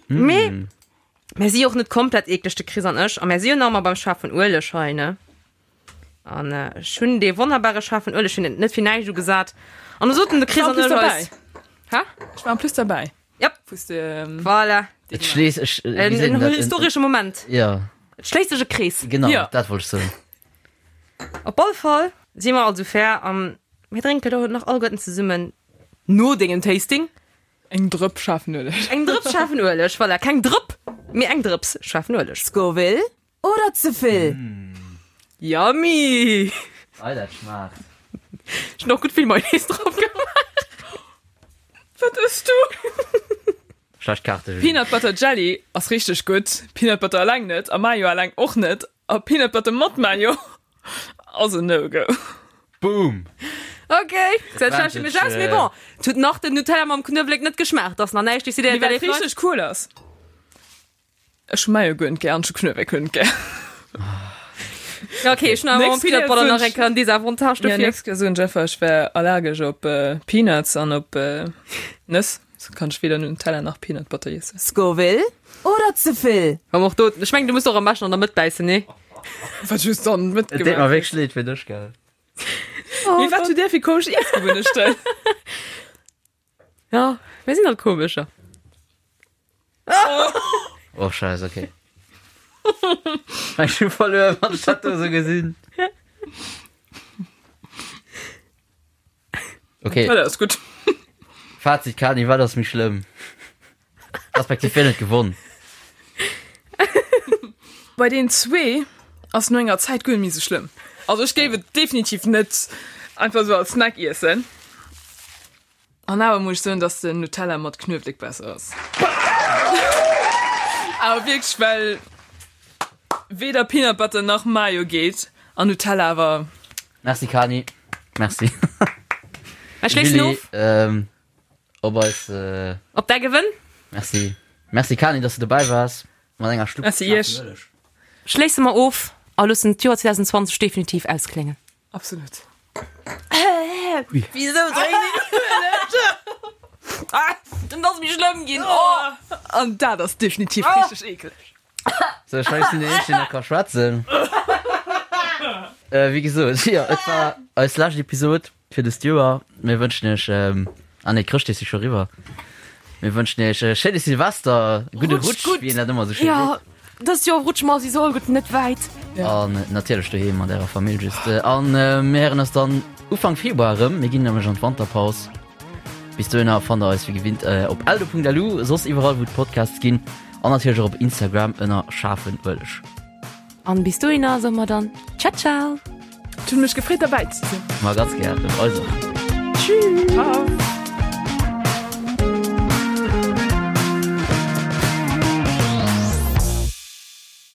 Mee mir si och net komplett eekleg, de Chris an ech, a mir si jo nach ëmmer beim schaarfen Ueleg hei, ne? An ech hunn dee wonnerbare schaarfen Ueleg hunn et net fir näischt ugesat. An du soten de Chris Ech war an en ech plus eis. dabei. Hä? Ech war en plus derbäi. Jep. Wous de, ähm, Voilà. Et schléisst ech, wéi En, seet en een dat? historesche Moment. Ja, Et schléisst sech e Krees. genau, Ja. dat wollt ech soen. Op all Fall si mer also fair an mir drénken do nach alleguerten zesummen no dengem Tasting Eng Drëpp schaarfen Ueleg. eng Drëps schaarfen Ueleg. Voilà, keng Drëpp, mee eng Drëps schaarfen Ueleg. Scoville oder ze vill? Yummy! Ei, dat schmaacht. Ech hunn och gutt vill Mayonnaise drop gemaach. Wat ëss du? Schlecht Kaarte, Julie. Peanut Butter Jelly ass richteg gutt, Peanut Butter eleng net a Mayo eleng och net a Peanut Butter mat Mayo ass en No-Go. Boom! Ok, dat schlecht mech aus, mee bon, et huet nach den Nutella mam Knuewelek net geschmaacht, ass nach näischt decidéiert. Mee wat richteg cool ass, ech hu Mayo guer net gär an ech hu Knuewelek guer net gär. Ja, ok, ech hunn awer mam Nächst Peanut Kéier Butter soen nach ech- eng Kéier en Desavantage Ja, dofir. nächst Kéier soen ech einfach, ech wär allergesch op Peanuts an op Nëss. So kann ech weder Nutella nach Peanut Butter iessen. Scoville oder ze vill? Komm och do, ech mengen du muss och am beschten an der Mëtt bäissen, nee? Wat just dann Et deet mer mitgemaach. wierklech leed fir dech, gell? Mee wat hutt Dir fir komesch Iessgewunnechten? Ja, mir sinn halt komescher. Oh Scheiß, okay. Ech hu verluer, wann ech dat do sou gesinn. Okay. Nutella ass gutt. Fazit, Kani, wat ass méi schlëmm? Respektiv wien huet gewonn? Bei den zwee ass no enger Zäit guer net méi sou schlëmm. Also ech géif et definitiv net einfach sou als Snack iessen. An awer muss ech soen, dass den Nutella mat Knuewelek besser ass. Awer wierklech, well weder Peanut Butter nach Mayo geet an Nutella awer. Merci Kani. Merci. Ech schléissen Julie, of. ähm, op eis. Äh, Op däi Gewënn. merci. Merci Kani, dass du dobäi waars mat enger Schlupp. Merci iech. Schléisse mer of a loossen d'Joer 2020 definitiv auskléngen. Absolut. Wisou dréinen Ah, dann ass méi schlëmm ginn. Oh. An dat ass definitiv richteg eekeleg. So, ech sinn den Eenzegen, deen nach ka schwätzen. Äh, wéi gesot, jo, et war eis lescht Episod fir dëst Joer. Mir wënschen iech, ähm, ah nee, Chrëschtdeeg si scho eriwwer. Mir wënschen iech e schéine Silvester, e gudde Rutscht Rutsch, gutt. wéi een dat ëmmer esou schéi Ja, seet. dëst Joer rutsche mer souwisou all gutt net wäit. An natierlech doheem mat ärer Famill just. An mir héieren eis dann Ufank Februar erëm. Mir ginn nämlech an d'Wanterpaus. Bis dohinner fannt der eis wéi gewinnt op eldo.lu, soss iwwerall wou et Podcasts ginn an natierlech och op Instagram ënner schaarfen Ueleg. An bis dohinner soe mer dann Ciao ciao. Et huet mech gefreet derbäi ze sinn. Ma ganz gären, also. Tschüss. Ciao.